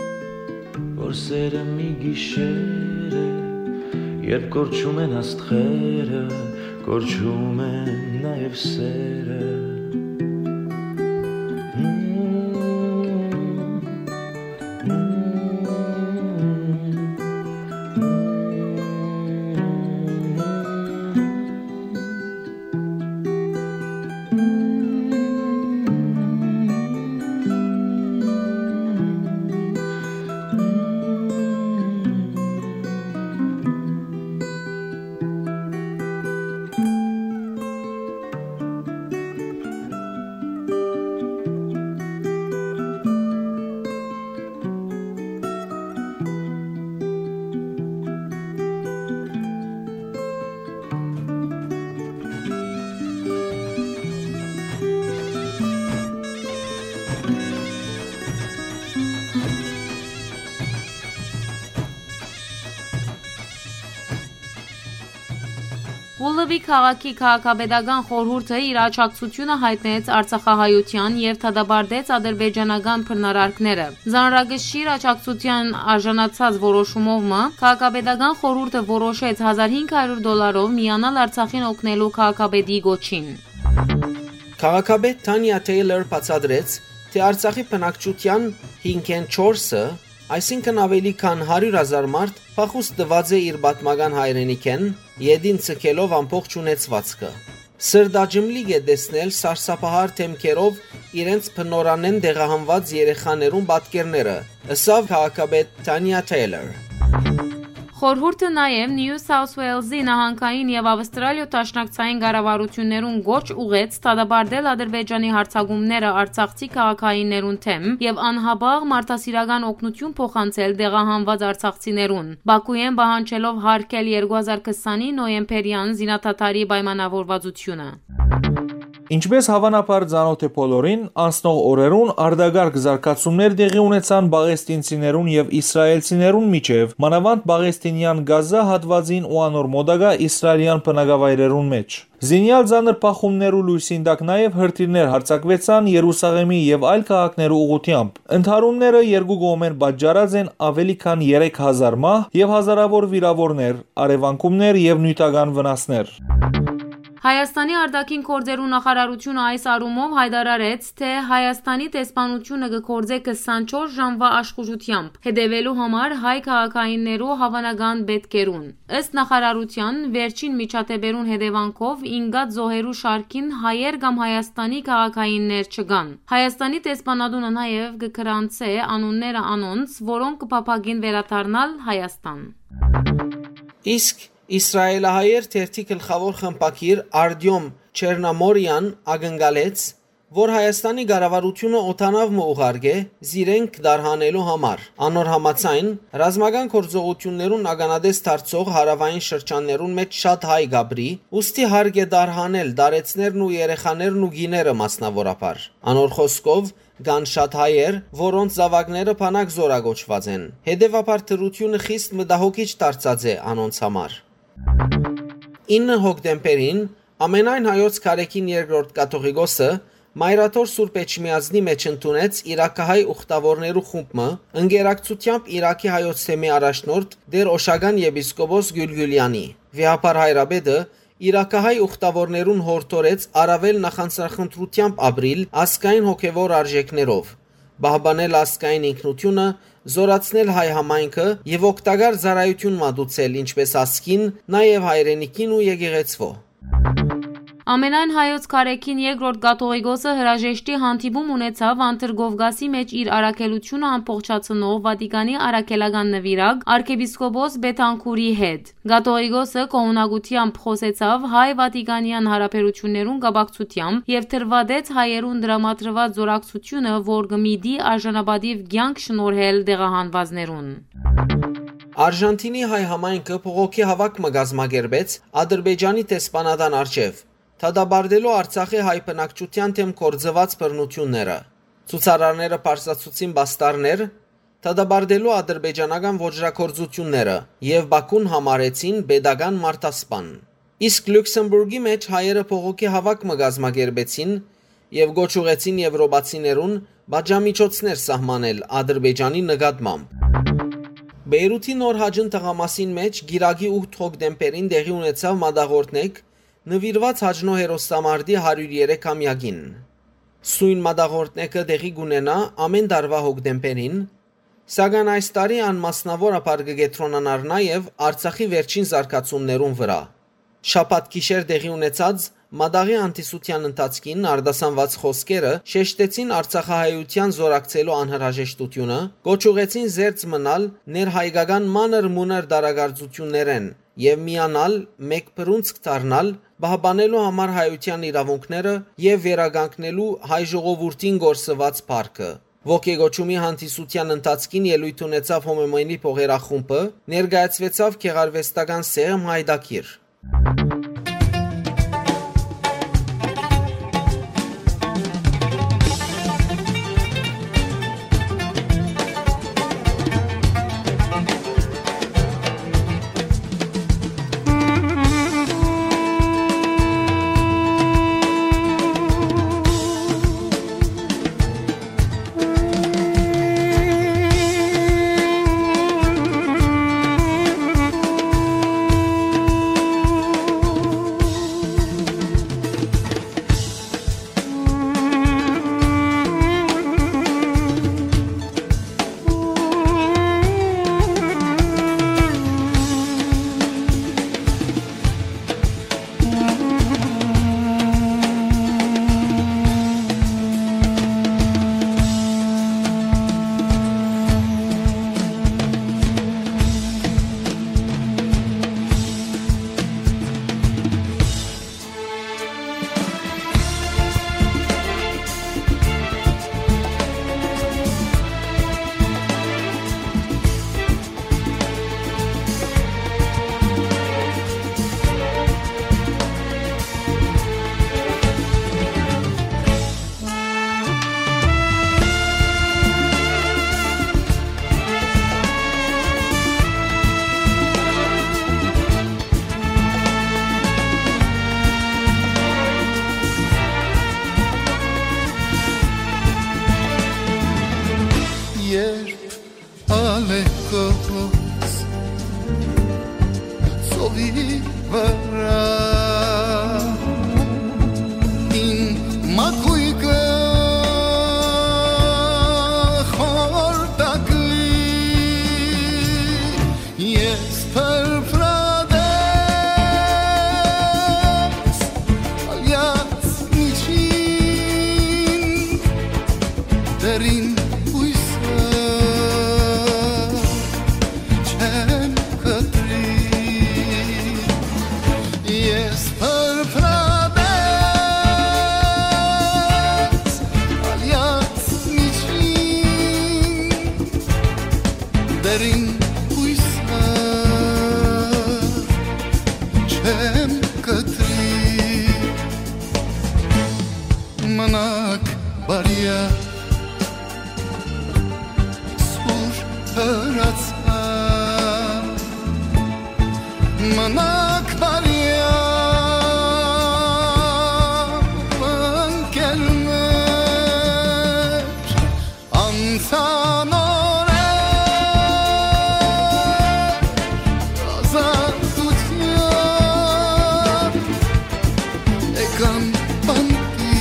որ սերը մի գիշեր է, երբ կորչում են աստղերը, կորչում են նաև սերը։ Ուլլուի քաղաքի քաղաքապետական խորհուրդը իր աջակցությունը յայտնեց արցախահայութեան եւ դատապարտեց ադրբեջանական բռնարարքները։ Ծանրակշիռ աջակցութեան արժանացած որոշումով մը քաղաքապետական խորհուրդը որոշեց հազար հինգ հարիւր դոլարով միանալ Արցախին օգնելու քաղաքապետի կոչին։ Քաղաքապետ Թանիա Թեյլոր բացատրեց, թէ Արցախի բնակչութեան հինգէն չորսը, այսինքն ավելի քան հարիւր հազար մարդ, փախուստ տուած է իր պատմական հայրենիքէն, ետին ձգելով ամբողջ ունեցուածքը։ Սրտաճմլիկ է տեսնել սարսափահար դեմքերով իրենց բնօրրանէն տեղահանուած երեխաներուն պատկերները, ըսաւ քաղաքապետ Թանիա Թեյլոր։ Խորհուրդը նաև Նիու Սաութ Ուելզի նահանգային եւ Ավստրալիոյ դաշնակցային կառավարութիւններուն կոչ ուղղեց դատապարտել Ադրբեջանի յարձակումները արցախցի քաղաքայիններուն դէմ եւ անհապաղ մարդասիրական օգնութիւն փոխանցել տեղահանուած արցախցիներուն, Բաքուէն պահանջելով յարգել երկու հազար քսանի նոյեմբերեան զինադադարի պայմանավորվածութիւնը։ Ինչպէս հաւանաբար ծանօթ է բոլորին, անցնող օրերուն արտակարգ զարգացումներ տեղի ունեցան պաղեստինցիներուն եւ իսրայելցիներուն միջեւ, մանաւանդ պաղեստինեան Գազա հատուածին ու անոր մօտակայ իսրայելեան բնակավայրերուն մէջ։ Զինեալ ծանր բախումներ ու լոյսին տակ նաեւ հրթիռներ յարձակուեցան Երուսաղէմի եւ այլ քաղաքներու ուղղութեամբ։ Ընդհարումները երկու կողմէն պատճառած են ավելի քան երեք հազար մահ եւ հազարաւոր վիրաւորներ, առեւանգումներ եւ նիւթական վնասներ։ Հայաստանի արտաքին գործերու նախարարութիւնը այս առումով յայտարարեց, թէ Հայաստանի դեսպանութիւնը կը գործէ քսանչորս ժամուա աշխուժութեամբ, հետեւելու համար հայ քաղաքայիններու հաւանական պէտքերուն։ Ըստ նախարարութեան, վերջին միջադէպերուն հետեւանքով ինկած զոհերու շարքին հայեր կամ Հայաստանի քաղաքայիններ չկան։ Հայաստանի դեսպանատունը նաեւ կը գրանցէ անունները անոնց, որոնք կը փափագին վերադառնալ Հայաստան։ Իսկ իսրայելահայեր թերթի գլխաւոր խմբագիր Արտիոմ Չերնամորեան ակնկալեց, որ Հայաստանի կառավարութիւնը օդանաւ մը ուղարկէ զիրենք դարհանելու համար։ Անոր համաձայն, ռազմական գործողութիւններուն ականատես դարձող հարաւային շրջաններուն մէջ շատ հայ կ'ապրի, ուստի հարկ է դարհանել տարեցներն ու երեխաներն ու կիները մասնաւորաբար։ Անոր խօսքով, կան շատ հայեր, որոնց զաւակները բանակ զօրակոչուած են։ Հետեւաբար դրութիւնը խիստ մտահոգիչ դարձած է անոնց համար։ Ինը հոկտեմբերին Ամենայն հայոց Գարեգին Երկրորդ Կաթողիկոսը Մայրաթոր Սուրբ Էջմիածնի մէջ ընդունեց իրաքահայ ուխտաւորներու խումբ մը, ընկերակցութեամբ Իրաքի հայոց թեմի առաջնորդ Տեր Օշական եպիսկոպոս Գիւլգիլեանի։ Վեհափառ հայրապետը իրաքահայ ուխտաւորներուն յորդորեց առաւել նախանձախնդրութեամբ ապրիլ ազգային հոգեւոր արժեքներով, պահպանել ազգային ինքնութիւնը, զօրացնել հայ համայնքը եւ օգտակար ծառայութիւն մատուցել ինչպէս ազգին, նաեւ հայրենիքին ու եկեղեցւոյ։ Ամենայն հայոց Գարեգին Երկրորդ Կաթողիկոսը հրաժեշտի հանդիպում ունեցաւ Անդրկովկասի մէջ իր առաքելութիւնը ամբողջացնող Վատիկանի առաքելական նուիրակ արքեպիսկոպոս Բեթանքուրի հետ։ Կաթողիկոսը գոհունակութեամբ խօսեցաւ հայ-վատիկանեան յարաբերութիւններուն կապակցութեամբ եւ դրուատեց հայերուն տրամադրուած զօրակցութիւնը, որ կը միտի արժանապատիւ կեանք շնորհել տեղահանուածներուն։ Արժանթինի հայ համայնքը բողոքի հաւաք մը կազմակերպեց Ադրբեջանի դեսպանատան առջեւ, դատապարտելու Արցախի հայ բնակչութեան դէմ գործուած բռնութիւնները։ Ցուցարարները բարձրացուցին պաստառներ, դատապարտելու ադրբեջանական ոճրագործութիւնները եւ Բաքուն համարեցին պետական մարդասպան։ Իսկ Լյուքսեմբուրգի մէջ հայերը բողոքի հաւաք մը կազմակերպեցին եւ կոչ ուղղեցին եւրոպացիներուն պատժամիջոցներ սահմանել Ադրբեջանի նկատմամբ։ Բեյրութի Նոր Հաճն թաղամասին մէջ կիրակի ութ հոկտեմբերին տեղի ունեցաւ մատաղորդնեկ նուիրուած Հաճնոյ հերոստամարտի հարիւր երեք ամեակին։ Սոյն մատաղորդնեկը տեղի կունենայ ամէն տարուայ հոկտեմբերին, սակայն այս տարի ան մասնաւորաբար կը կեդրոնանար նաեւ Արցախի վերջին զարգացումներուն վրայ։ Շաբաթ գիշեր տեղի ունեցած մատաղի հանդիսութեան ընթացքին արտասանուած խօսքերը շեշտեցին արցախահայութեան զօրակցելու անհրաժեշտութիւնը, կոչ ուղղեցին զերծ մնալ ներհայկական մանր-մունր տարակարծութիւններէն եւ միանալ, մէկ բռունցք դառնալ, պահպանելու համար հայութեան իրաւունքները եւ վերականգնելու հայ ժողովուրդին կորսուած փառքը։ Ոգեկոչումի հանդիսութեան ընթացքին ելոյթ ունեցաւ Հոմոմենի փողերախումբը, ներկայացուեցաւ գեղարուեստական սեղմ Հայդակիր։ Երբ ալեկոս ծովի վրայ իմ մակոյկը խորտակլի, ես փրփրատես ալեաց միջին դերին հոյսը չեմ կտրի։ Ես փրփրատես ալեաց միջին դերին հոյսը չեմ կտրի։ Մնաք բարիա, սուր հրացան, մնաք բարիա, ընկերներ, անցան օրեր ազատության, եկան բանտի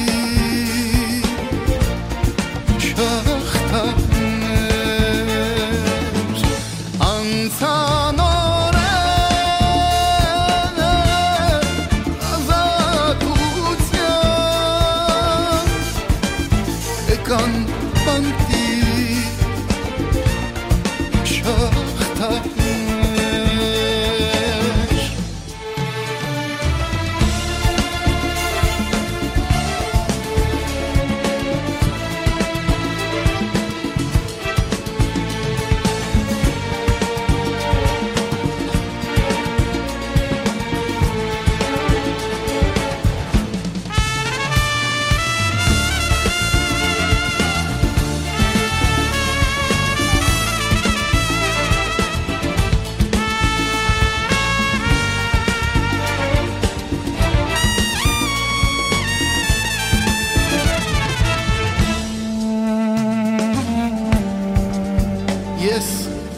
շղթաներ, անցան օրեր ազատության, եկան բանտի շղթաներ։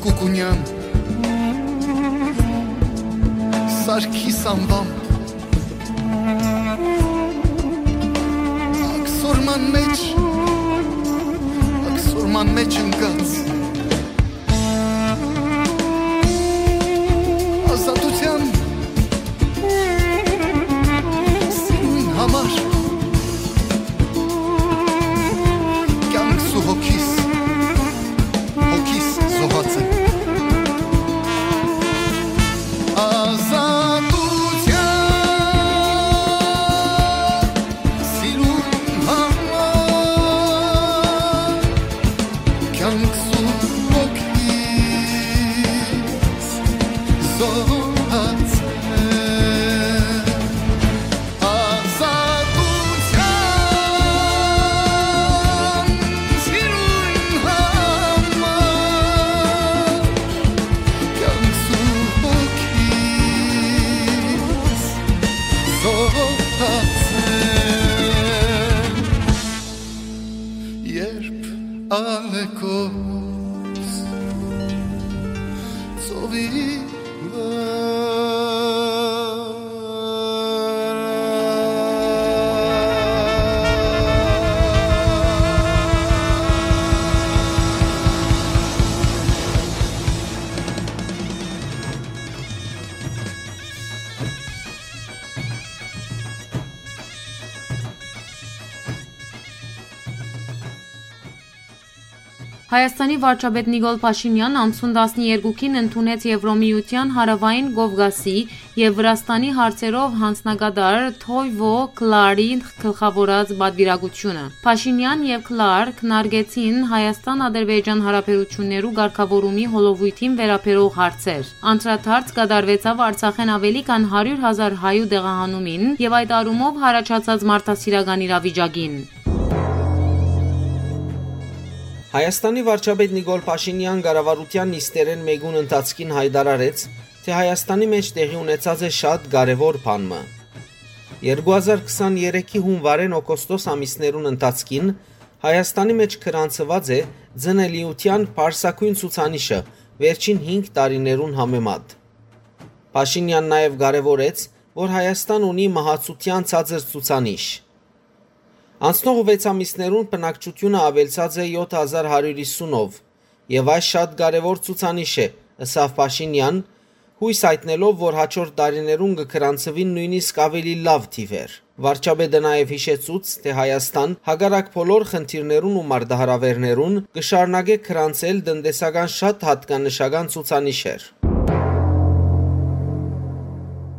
Կուկունեան, Սարգիս անվամբ, աքսորման մեջ, աքսորման մեջ ընկած, ազատության սիրուն համար կյանքս ու հոգիս, հոգիս զոհած եմ։ Ազատության սիրուն համար կյանքս ու հոգիս զոհած եմ։ Ազատության սիրուն համար կյանքս ու հոգիս զոհած եմ։ Երբ ալեկոս ծովի վրա Հայաստանի վարչապետ Նիկոլ Փաշինեան անցուն տասներկուին ընդունեց Եվրոմիութեան Հարաւային Կովկասի եւ Վրաստանի հարցերով յանձնակատար Թոյվո Կլարի գլխաւորած պատուիրակութիւնը։ Փաշինեան եւ Կլար քննարկեցին Հայաստան-Ադրբեջան հարաբերութիւններու կարգաւորումի հոլովոյթին վերաբերող հարցեր։ Անդրադարձ կատարուեցաւ Արցախէն աւելի քան հարիւր հազար հայու տեղահանումին եւ այդ առումով յառաջացած մարդասիրական իրավիճակին։ Հայաստանի վարչապետ Նիկոլ Փաշինեան կառավարութեան նիստերէն մէկուն ընթացքին յայտարարեց, թէ Հայաստանի մէջ տեղի ունեցած է շատ կարեւոր բան մը։ Երկու հազար քսաներեքի հունուարէն օգոստոս ամիսներուն ընթացքին Հայաստանի մէջ գրանցուած է ծնելիութեան պարսագոյն ցուցանիշը վերջին հինգ տարիներուն համեմատ։ Փաշինեան նաեւ կարեւորեց, որ Հայաստան ունի մահացութեան ցածր ցուցանիշ։ Անցնող վեց ամիսներուն բնակչութիւնը աւելցած է յոթ հազար հարիւր հիսունով, եւ այս շատ կարեւոր ցուցանիշ է, ըսաւ Փաշինեան, յոյս յայտնելով, որ հաջորդ տարիներուն կը գրանցուին նոյնիսկ աւելի լաւ թիւեր։ Վարչապետը նաեւ յիշեցուց, թէ Հայաստան, հակառակ բոլոր խնդիրներուն ու մարտահրաւէրներուն, կը շարունակէ գրանցել տնտեսական շատ յատկանշական ցուցանիշեր։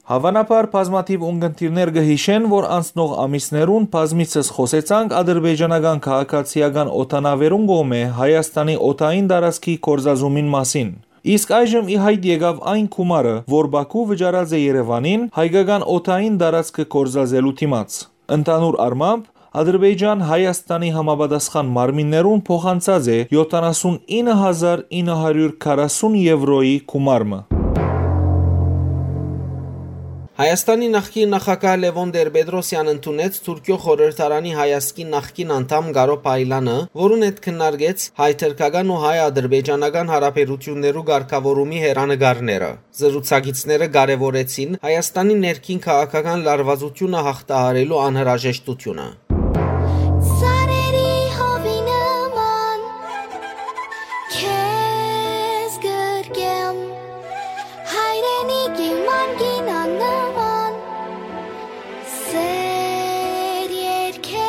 Հաւանաբար բազմաթիւ ունկնդիրներ կը յիշեն, որ անցնող ամիսներուն բազմիցս խօսեցանք ադրբեջանական քաղաքացիական օդանաւերուն կողմէ Հայաստանի օդային տարածքի գործազումին մասին։ Իսկ այժմ ի յայտ եկաւ այն գումարը, որ Բաքու վճարած է Երեւանին հայկական օդային տարածքը գործածելու դիմաց։ Ընդհանուր առմամբ, Ադրբեջան Հայաստանի համապատասխան մարմիններուն փոխանցած է յոթանասուն ինը հազար ինը հարիւր քառասուն եվրոյի գումար մը։ Հայաստանի նախկին նախագահ Լեւոն Տեր-Պետրոսեան ընդունեց Թուրքիոյ խորհրդարանի հայազգի նախկին անդամ Կարո Փայլանը, որուն հետ քննարկեց հայ-թրքական ու հայ-ադրբեջանական հարաբերութիւններու կարգաւորումի հեռանկարները։ Զրուցակիցները կարեւորեցին Հայաստանի ներքին քաղաքական լարուածութիւնը յաղթահարելու անհրաժեշտութիւնը։ Ծառերի հովի նման քեզ գրկեմ, հայրենիքի մանկին աննման սեր երկեմ։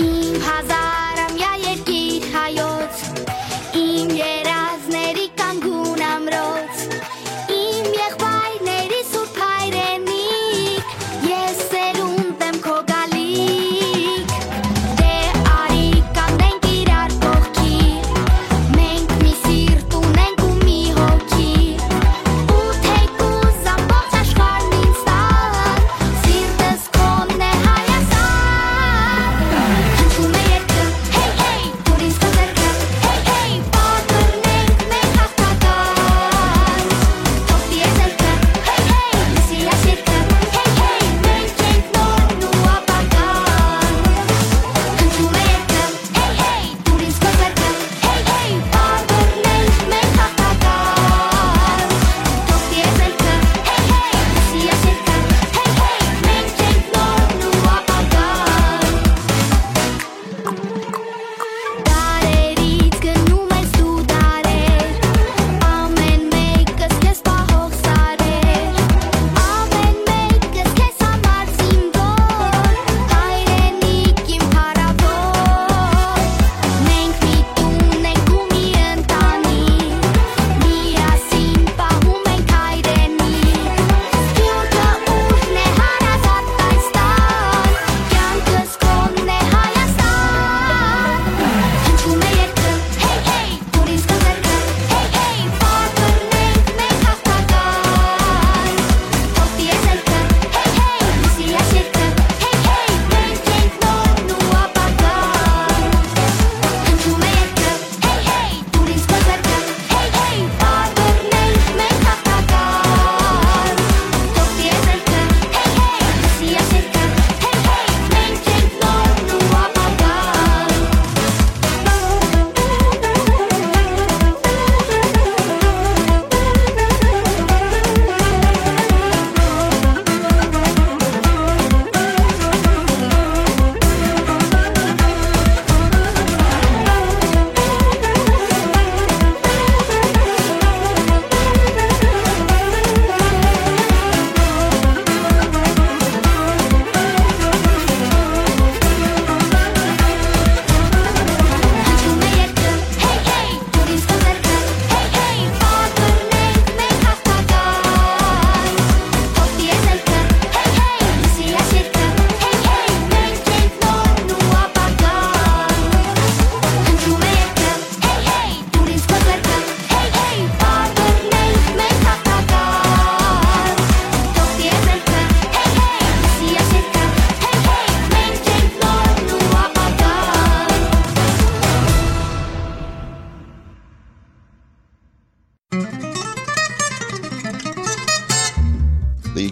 Իմ հազարամյա երկիր հայոց, իմ երազների կանգուն ամրոց, իմ եղբայրների սուրբ հայրենիք, ես սերունդ եմ քո գալիք։ Դե արի կանգնենք իրար կողքի, մենք մի սիրտ ունենք ու մի հոգի, ու թեկուզ ամբողջ աշխարհն ինձ տան, սիրտս քոնն է Հայաստան, հնչում է երկը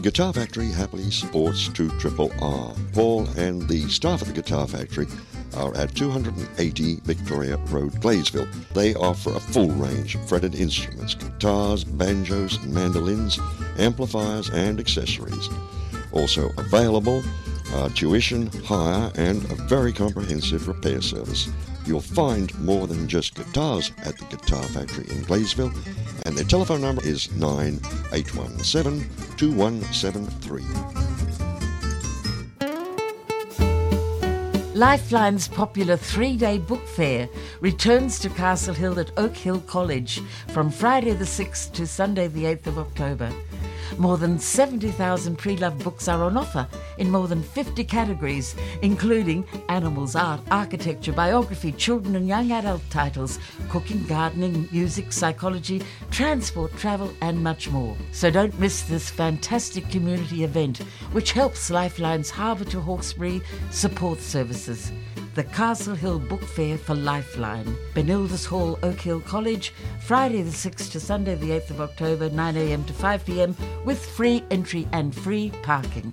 Guitar Factory happily supports two triple R. Paul and the staff at the Guitar Factory are at two hundred and eighty Victoria Road, Gleysville. They offer a full range of fretted instruments, guitars, banjos, mandolins, amplifiers, and accessories. Also available are tuition, hire, and a very comprehensive repair service. You'll find more than just guitars at the Guitar Factory in Gleysville, and their telephone number is nine eight one seven, two one seven three. Lifeline's popular three-day book fair returns to Castle Hill at Oak Hill College from Friday the sixth to Sunday the eighth of October. More than seventy thousand pre-loved books are on offer in more than fifty categories, including animals, art, architecture, biography, children and young adult titles, cooking, gardening, music, psychology, transport, travel, and much more. So don't miss this fantastic community event, which helps Lifeline's Harbour to Hawkesbury support services. The Castle Hill Book Fair for Lifeline, Benildus Hall, Oak Hill College, Friday the sixth to Sunday the eighth of October, nine a.m. to five p.m., with free entry and free parking.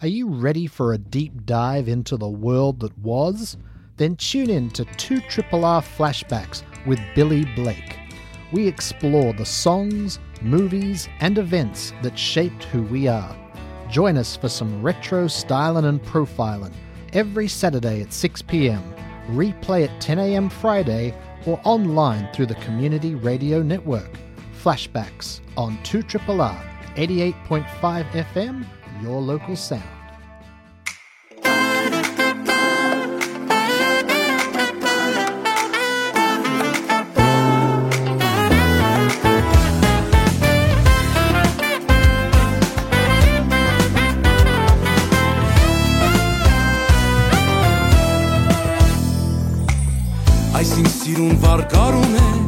Are you ready for a deep dive into the world that was? Then tune in to two triple R Flashbacks with Billy Blake. We explore the songs, movies, and events that shaped who we are. Join us for some retro styling and profiling every Saturday at six p.m., replay at ten a.m. Friday, or online through the Community Radio Network. Flashbacks on two triple R, eighty-eight point five F M, your local sound. Այսինք սիրուն վարկարում են,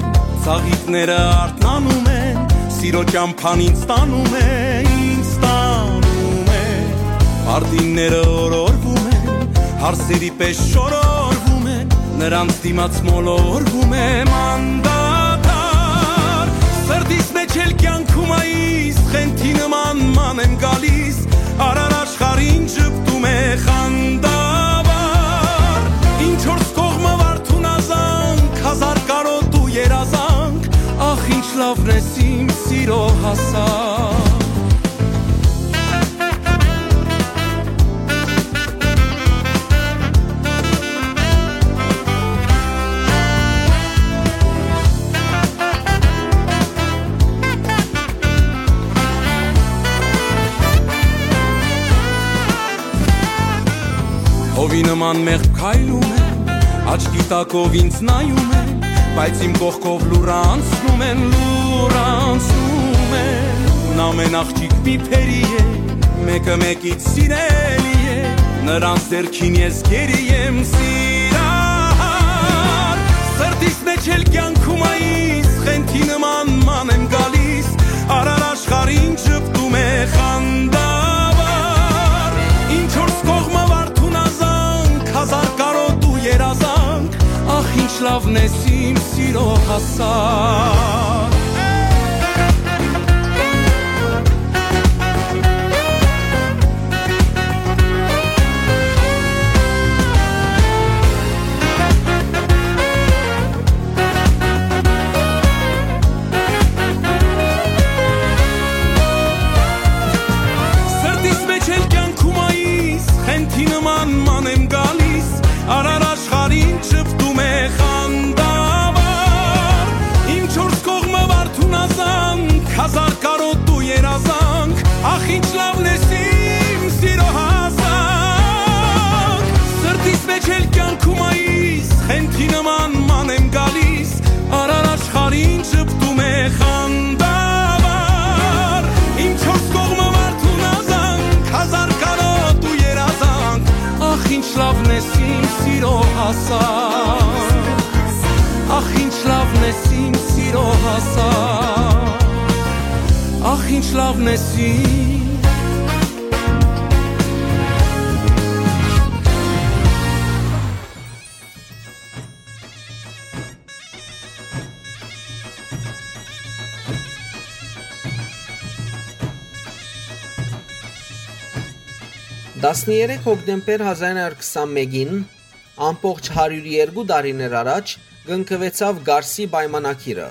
ծաղիկները արթնանում են, սիրո ճամփան ինձ տանում է, ինձ տանում է։ Արտինները օրորվում են, հարսերի պես շորորվում են, նրանց դիմաց մոլորվում եմ անդադար։ Սրտիս մեջ էլ կյանքում այս խենթի նման ման եմ գալիս, արար աշխարհին ժպտում է խանդավառ։ Ինչ որ կողմը վարդուն ազանք, հազար կարոտ ու երազանք, ախ, ինչ լավն ես իմ սիրո հասակ։ Հովի նման մեղմ քայլում եմ, աչքի տակով ինձ նայում են, բայց իմ կողքով լուռ անցնում են, լուռ անցնում են։ Ամեն աղջիկ մի փերի է, մեկը մեկից սիրելի է, նրանց ձեռքին ես գերի եմ սիրահար։ Սրտիս մեջ էլ կյանքում այս խենթի նման ման եմ գալիս, արար աշխարհին ժպտում է խանդավառ։ Ինչ որ կողմը վարդուն ազանք, հազար կարոտ ու երազանք, ախ, ինչ լավն ես իմ սիրո հասակ։ Սրտիս մեջ էլ կյանքում այս խենթի նման ման եմ գալիս, արար աշխարհին ժպտում է խանդավառ։ Ինչ որ կողմը վարդուն ազանք, հազար կարոտ ու երազանք, ախ, ինչ լավն ես իմ սիրո հասակ։ Սրտիս մեջ էլ կյանքում այս խենթի նման ման եմ գալիս, արար աշխարհին ժպտում է խանդավառ։ Ինչ որ կողմը վարդուն ազանք, հազար կարոտ ու երազանք, ախ, ինչ լավն ես իմ սիրո հասակ։ Ախ, ինչ լավն ես իմ սիրո հասակ։ Ախ, ինչ լավն ես իմ Տասներեք հոկտեմբեր հազար ինը հարյուր քսանմէկին, ամբողջ հարիւր երկու տարիներ առաջ, կնքուեցաւ Կարսի պայմանագիրը,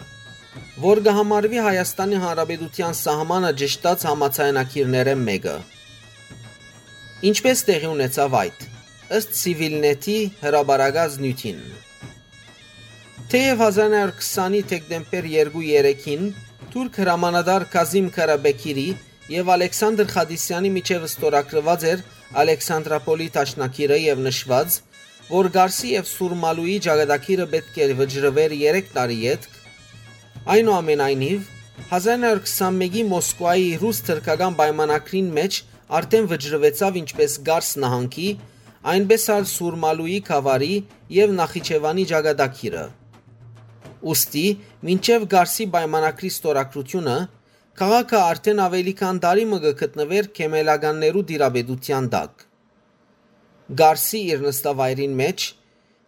որ կը համարուի Հայաստանի Հանրապետութեան սահմանը ճշտած համաձայնագիրներէն մէկը։ Ինչպէս տեղի ունեցաւ այդ, ըստ Սիվիլնեթի հրապարակած նիւթին։ Թէեւ հազար ինը հարյուր քսանի դեկտեմբեր երկու երեքին թուրք հրամանատար Կազիմ Քարաբեքիրի եւ Ալեքսանդր Խադիսեանի միջեւ ստորագրուած էր Ալեքսանդրապոլի դաշնագիրը եւ նշուած, որ Կարսի եւ Սուրմալուի ճակատագիրը պէտք է վճռուէր երեք տարի ետք, այնուամենայնիվ, հազար ինը հարյուր քսանմէկի Մոսկուայի ռուս-թրքական պայմանագրին մէջ արդէն վճռուեցաւ ինչպէս Կարս նահանգի, այնպէս ալ Սուրմալուի գաւառի եւ Նախիջեւանի ճակատագիրը։ Ուստի, մինչեւ Կարսի պայմանագրի ստորագրութիւնը, քաղաքը արդէն աւելի քան տարի մը կը գտնուէր քեմելականներու տիրապետութեան տակ։ Կարսի իր նստավայրին մէջ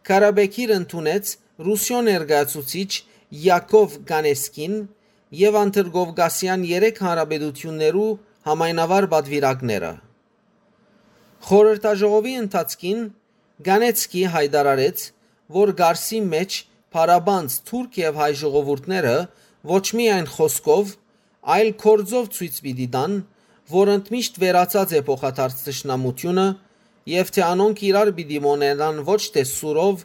Քարաբեքիր ընդունեց Ռուսիոյ ներկայացուցիչ Յակով Կանեսկին եւ Անդրկովկասեան երեք հանրապետութիւններու համայնավար պատուիրակները։ Խորհրդաժողովի ընթացքին Կանեցկի յայտարարեց, որ Կարսի մէջ փառապանծ թուրք եւ հայ ժողովուրդները ոչ միայն խօսքով, այլ գործով ցոյց պիտի տան, որ ընդմիշտ վերացած է փոխադարձ թշնամութիւնը եւ թէ անոնք իրար պիտի մօնենան ոչ թէ սուրով,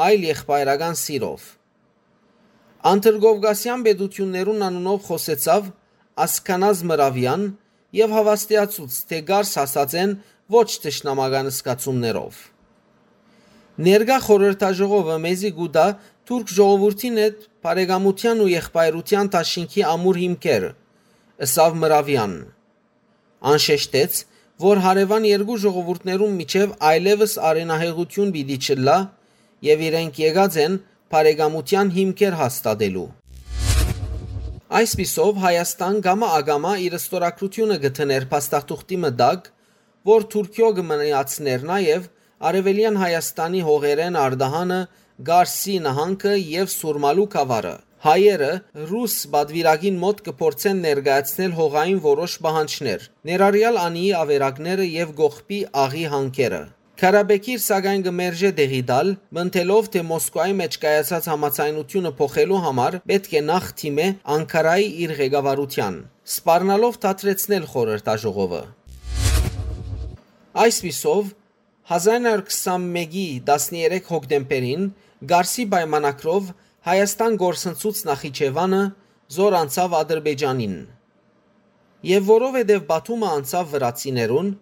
այլ եղբայրական սիրով։ Անդրկովկասեան պետութիւններուն անունով խօսեցաւ Ասքանազ Մրավեան եւ հաւաստիացուց, թէ Կարս հասած են ոչ թշնամական զգացումներով։ Ներկայ խորհրդաժողովը մեզի կու տայ թուրք ժողովուրդին հետ բարեկամութեան ու եղբայրութեան դաշինքի ամուր հիմքեր, ըսաւ Մրավեան։ Ան շեշտեց, որ հարեւան երկու ժողովուրդներուն միջեւ այլեւս արենահեղութիւն պիտի չըլլայ եւ իրենք եկած են բարեկամութեան հիմքեր հաստատելու։ Այսպիսով, Հայաստան կամա ակամա իր ստորագրութիւնը կը դներ փաստաթուղթի մը տակ, որ Թուրքիոյ կը մնացներ նաեւ Արեւելեան Հայաստանի հողերէն արտահանը Կարսի նահանգը եւ Սուրմալու գաւառը։ Հայերը ռուս պատուիրակին մօտ կը փորձեն ներկայացնել հողային որոշ պահանջներ, ներառեալ անիի ավերակները եւ կողբի աղի հանքերը։ Քարաբեքիր, սակայն, կը մերժէ տեղի տալ, մտելով, թէ Մոսկուայի մէջ կայացած համաձայնութիւնը փոխելու համար պէտք է նախ դիմէ Անկարայի իր ղեկավարութեան, սպառնալով դադրեցնել խորհրդաժողովը։ Այսպիսով, հազար ինը հարյուր քսանմէկի տասներեք հոկտեմբերին Կարսի պայմանագրով Հայաստան կորսնցուց Նախիջեւանը, զոր անցաւ Ադրբեջանին։ Եւ որովհետեւ Բաթումը անցաւ վրացիներուն,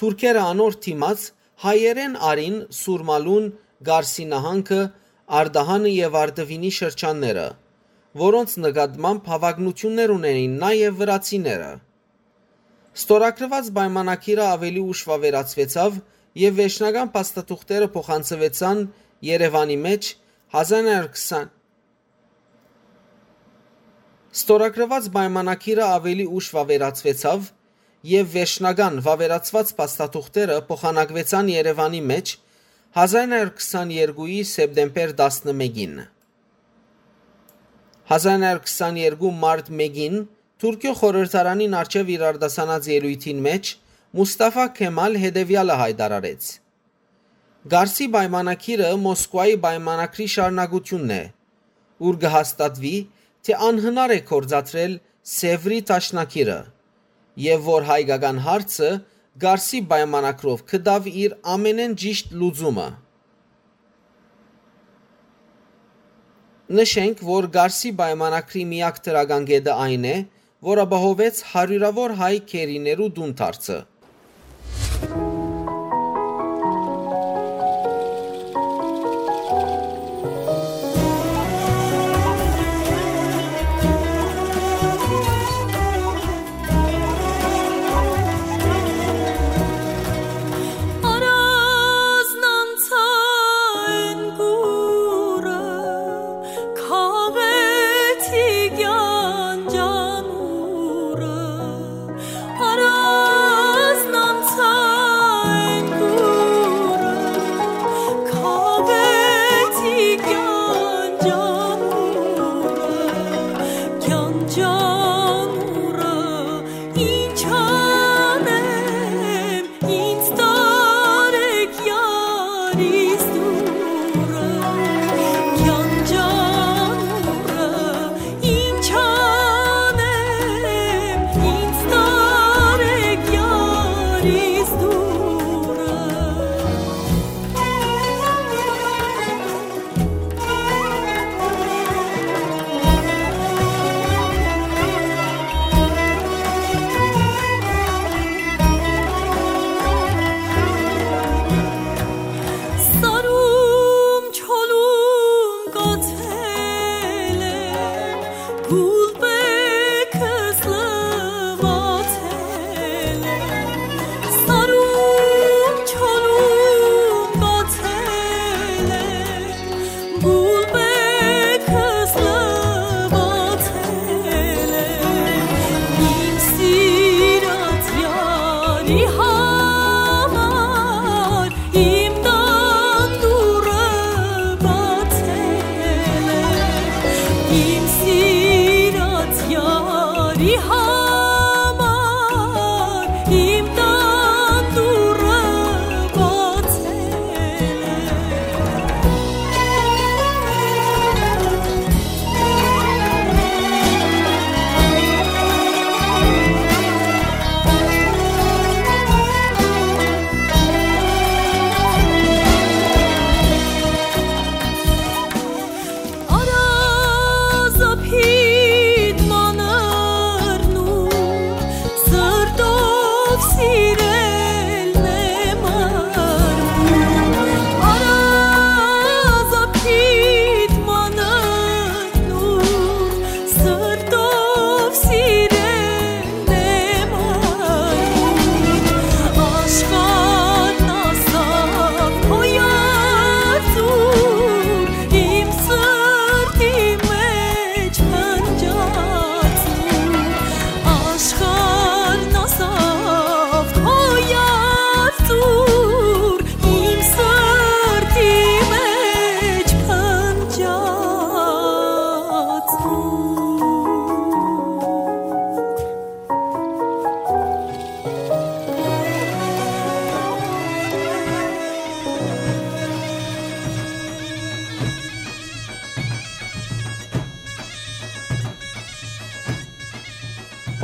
թուրքերը անոր դիմաց հայերէն առին Սուրմալուն, Կարսի նահանգը, Արտահանը եւ Արդուինի շրջանները, որոնց նկատմամբ հավակնութիւններ ունէին նաեւ վրացիները։ Ստորագրուած պայմանագիրը աւելի ուշ վաւերացուեցաւ եւ վերջնական փաստաթուղթերը փոխանցուեցան Երեւանի մէջ հազար ինը հարյուր քսան։ Ստորագրուած պայմանագիրը աւելի ուշ վաւերացուեցաւ եւ վերջնական վաւերացուած փաստաթուղթերը փոխանակուեցան Երեւանի մէջ հազար ինը հարյուր քսաներկուի սեպտեմբեր տասնմէկին։ Հազար ինը հարյուր քսաներկու մարտ մէկին Թուրքիոյ խորհրդարանին առջեւ իր արտասանած ելոյթին մէջ Մուսթաֆա Քեմալ հետեւեալը յայտարարեց. «Կարսի պայմանագիրը Մոսկուայի պայմանագրի շարունակութիւնն է, ուր կը հաստատուի, թէ անհնար է գործադրել Սեւրի դաշնագիրը եւ որ հայկական հարցը Կարսի պայմանագրով կը տաւ իր ամենէն ճիշտ լուծումը»։ Նշենք, որ Կարսի պայմանագրի միակ դրական կետը այն է, որ ապահովեց հարիւրաւոր հայ գերիներու տուն դարձը։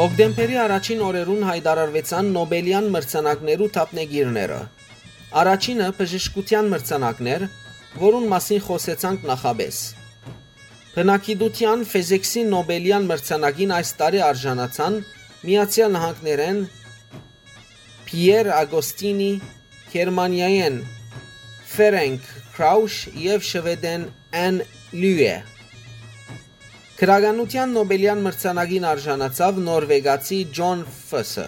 Հոկտեմբերի առաջին օրերուն յայտարարուեցան Նոբելեան մրցանակներու դափնեկիրները։ Առաջինը բժշկութեան մրցանակն էր, որուն մասին խօսեցանք նախապէս։ Բնագիտութեան Ֆեզեքսի Նոբելեան մրցանակին այս տարի արժանացան Միացեալ Նահանգներէն Փիեր Ագոստինի, Գերմանիայէն Ֆերենկ Քրաուշ եւ Շուեդէն Էն Լյուէ։ Գրականութեան Նոբելեան մրցանակին արժանացաւ նորվեգացի Ջոն Ֆսը,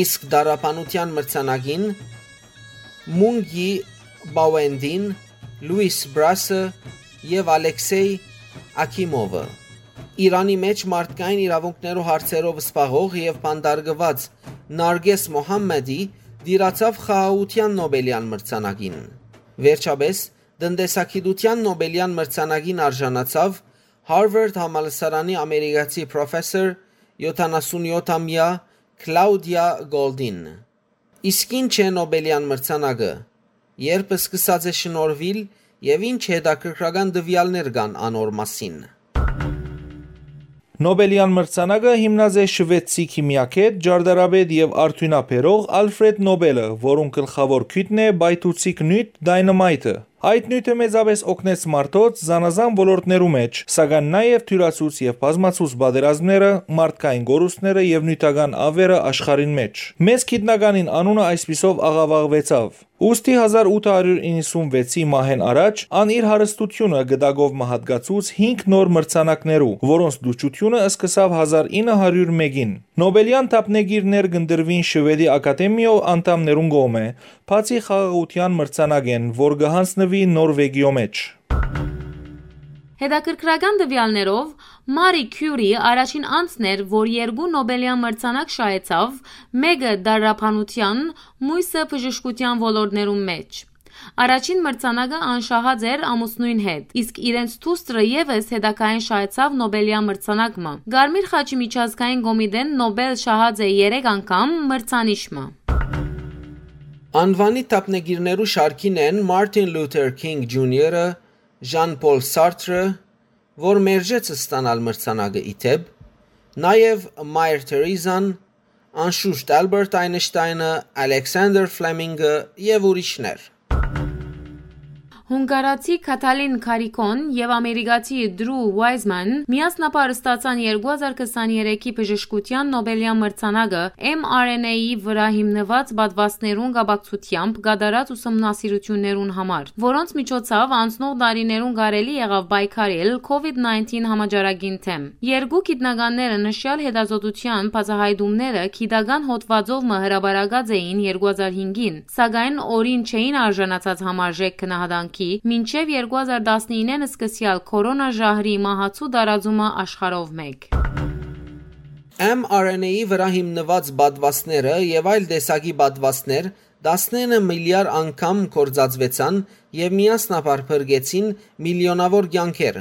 իսկ դարաբանութեան մրցանակին Մունգի Բաուենդին, Լուիս Բրասը եւ Ալեքսեյ Աքիմովը։ Իրանի մէջ մարդկային իրաւունքներու հարցերով զբաղող եւ բանտարկուած Նարգես Մոհամմեդի դիրացաւ խաղաղութեան Նոբելեան մրցանակին։ Վերջապէս, տնտեսագիտութեան Նոբելեան մրցանակին արժանացաւ Հարվարդ համալսարանի ամերիկացի պրոֆեսոր յոթանասուն յոթ ամյա Կլաուդիա Գոլդին։ Իսկ ի՞նչ է Նոբելեան մրցանակը, երբ սկսած է շնորհուիլ եւ ի՞նչ հետաքրքրական տուեալներ կան անոր մասին։ Նոբելեան մրցանակը հիմնած է շուեդցի քիմիագետ, ճարտարապետ եւ արդիւնաբերող Ալֆրեդ Նոբելը, որուն գլխաւոր գիւտն է պայթուցիկ նիւթ՝ դայնամայթը։ Այդ նիւթը մեծապէս օգնեց մարդոց զանազան ոլորտներու մէջ, սակայն նաեւ դիւրացուց եւ բազմացուց պատերազմները, մարդկային կորուստները եւ նիւթական աւերը աշխարհին մէջ։ Մեծ գիտնականին անունը այսպիսով աղաւաղուեցաւ։ Ուստի հազար ութը հարիւր իննսուն վեցի մահէն առաջ ան իր հարստութիւնը գտակով մը յատկացուց հինգ նոր մրցանակներու, որոնց դուչութիւնը սկսաւ հազար ինը հարիւր մէկին։ Նոբելեան դափնեկիրներ կ'ընտրուին Շուեդի Ակադեմիոյ անդամներուն կողմէ, բացի խաղաղութեան մրցանակէն, որ կը յանձնուի Նորվեգիոյ մէջ։ Հետաքրքրական տուեալներով, Մարի Քիուրի առաջին անձն էր, որ երկու Նոբելեան մրցանակ շահեցաւ, մէկը՝ դարաբանութեան, մոյսը՝ բժշկութեան ոլորտներուն մէջ։ Առաջին մրցանակը ան շահած էր ամուսնոյն հետ, իսկ իրենց դուստրը եւս հետագային շահեցաւ Նոբելեան մրցանակ մը։ Կարմիր խաչի միջազգային կոմիտէն Նոբել շահած է երեք անգամ մրցանիշ մը։ Անուանի դափնեկիրներու շարքին են Մարտին Լութեր Քինգ Ջունիորը, Ժան Պոլ Սարտրը, որ մերժեց ստանալ մրցանակը ի դէպ, նաեւ Մայր Թերեզան, անշուշտ Ալբերտ Այնշտայնը, Ալեքսանդր Ֆլեմինգը եւ ուրիշներ։ Հունգարացի Քաթալին Քարիքոն եւ ամերիկացի Դրու Ուայզման միասնապար ստացան երկու հազար քսաներեքի բժշկութեան Նոբելեան մրցանակը M R N A-ի վրայ հիմնուած պատուաստներուն կապակցությամբ կատարած ուսումնասիրութիւններուն համար, որոնց միջոցաւ անցնող տարիներուն կարելի եղաւ պայքարել COVID nineteen համաճարակին դէմ։ Երկու գիտնականները նշեալ հետազոտութեան բացայայտումները գիտական հոդվածով մը հրապարակած էին երկու հազար հինգին, սակայն օրին չէին արժանացած համարժեք գնահատանքի, մինչեւ երկու հազար տասնինը սկսեալ քորոնա ժահրի մահացու տարածումը աշխարհով մէկ։ M R N A-ի վրայ հիմնուած պատուաստները եւ այլ տեսակի պատուաստներ տասնինը միլիարդ անգամ գործածուեցան եւ միասնաբար փրկեցին միլիոնաւոր կեանքեր,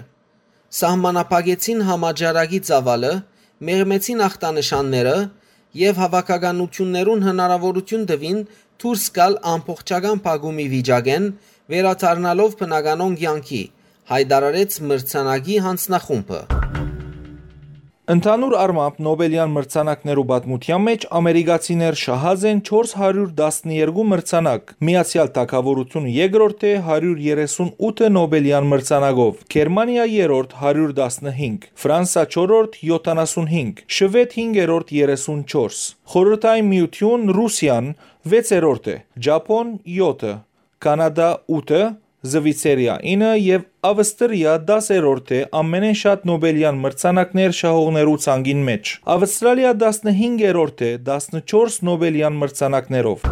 սահմանափակեցին համաճարակի ծաւալը, մեղմեցին ախտանշանները եւ հաւաքականութիւններուն հնարաւորութիւն տուին դուրս գալ ամբողջական փակումի վիճակէն, վերադառնալով բնականոն կեանքի, յայտարարեց մրցանակի յանձնախումբը։ Ընդհանուր առմամբ Նոբելեան մրցանակներու պատմութեան մէջ ամերիկացիներ շահած են չորս հարիւր տասներկու մրցանակ, Միացեալ Թագաւորութիւնը երկրորդ է՝ հարիւր երեսուն ութը Նոբելեան մրցանակով, Գերմանիա երրորդ՝ հարիւր տասնհինգ, Ֆրանսա չորրորդ՝ յոթանասուն հինգ, Շուեդ հինգերորդ՝ երեսուն չորս, Խորհրդային Միութիւն, Ռուսիան վեցերորդ է, Ճապոն՝ յոթը, Կանադա՝ ութը, Զվիցերիա՝ ինը եւ Ավստրիա՝ դասերորդ է ամենէն շատ Նոբելեան մրցանակներ շահողներու ցանկին մէջ։ Ավստրալիա տասնհինգերորդ է տասնչորս Նոբելեան մրցանակներով։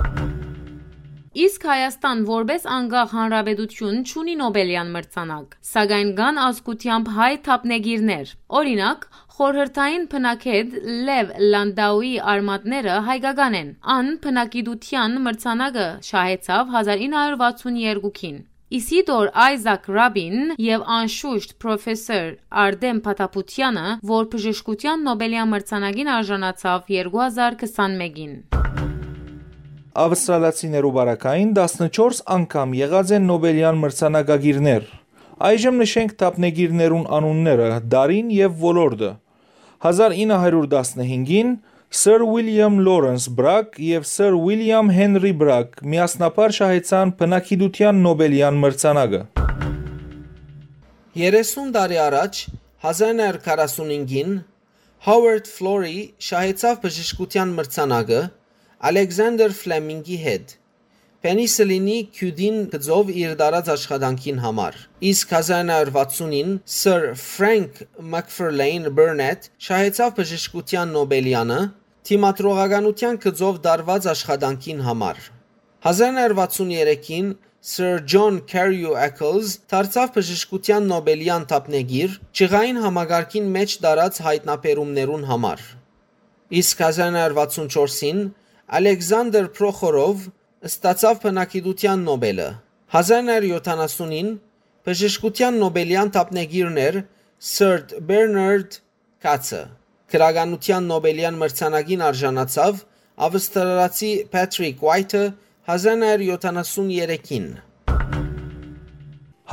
Իսկ Հայաստան որպէս անկախ հանրապետութիւն չունի Նոբելեան մրցանակ, սակայն կան ազգութեամբ հայ դափնեկիրներ։ Օրինակ, խորհրդային բնագետ Լեւ Լանդաուի արմատները հայկական են։ Ան բնագիտութեան մրցանակը շահեցաւ հազար ինը հարիւր վաթսուն երկուքին։ Իսիդոր Այզակ Ռաբին եւ անշուշտ պրոֆեսոր Արտեմ Փաթապուտյանը, որ բժշկութեան Նոբելեան մրցանակին արժանացաւ երկու հազար քսանմէկին։ Ավստրալացիներու պարագային տասնչորս անգամ եղած են Նոբելեան մրցանակակիրներ։ Այժմ նշենք դափնեկիրներուն անունները, դարին եւ ոլորտը։ Հազար ինը հարիւր տասնհինգին Սըր Ուիլիամ Լորենս Բրագ եւ Սըր Ուիլիամ Հենրի Բրագ միասնաբար շահեցան բնակիդութեան Նոբելեան մրցանակը։ Երեսուն տարի առաջ, հազար ինը հարիւր քառասունհինգին, Հովարդ Ֆլորի շահեցաւ բժշկութեան մրցանակը Ալեքսանդր Ֆլեմինկի հետ, պենիսիլինի քիւտին գծով իր տարած աշխատանքին համար։ Իսկ հազար ինը հարիւր վաթսունին Սըր Ֆրենկ Մակֆըրլէյն Բըրնեթ շահեցաւ բժշկութեան Նոբելեանը դիմադրողականութեան գծով տարուած աշխատանքին համար։ Հազար ինը հարիւր վաթսուն երեքին Սըր Ջոն Քարիու Էքլզ դարձաւ բժշկութեան Նոբելեան դափնեկիր՝ ջղային համակարգին մէջ տարած յայտնաբերումներուն համար։ Իսկ հազար ինը հարիւր վաթսուն չորսին Ալեքսանդր Պրոխորով ստացաւ բնակիդութեան Նոբելը։ Հազար ինը հարիւր յոթանասունին բժշկութեան Նոբելեան դափնեկիրն էր Սըր Բերնարդ Քացը։ Գրականութեան Նոբելեան մրցանակին արժանացաւ Աւստրալացի Փեթրիկ Ուայթը հազար ինը հարիւր յոթանասուն երեքին։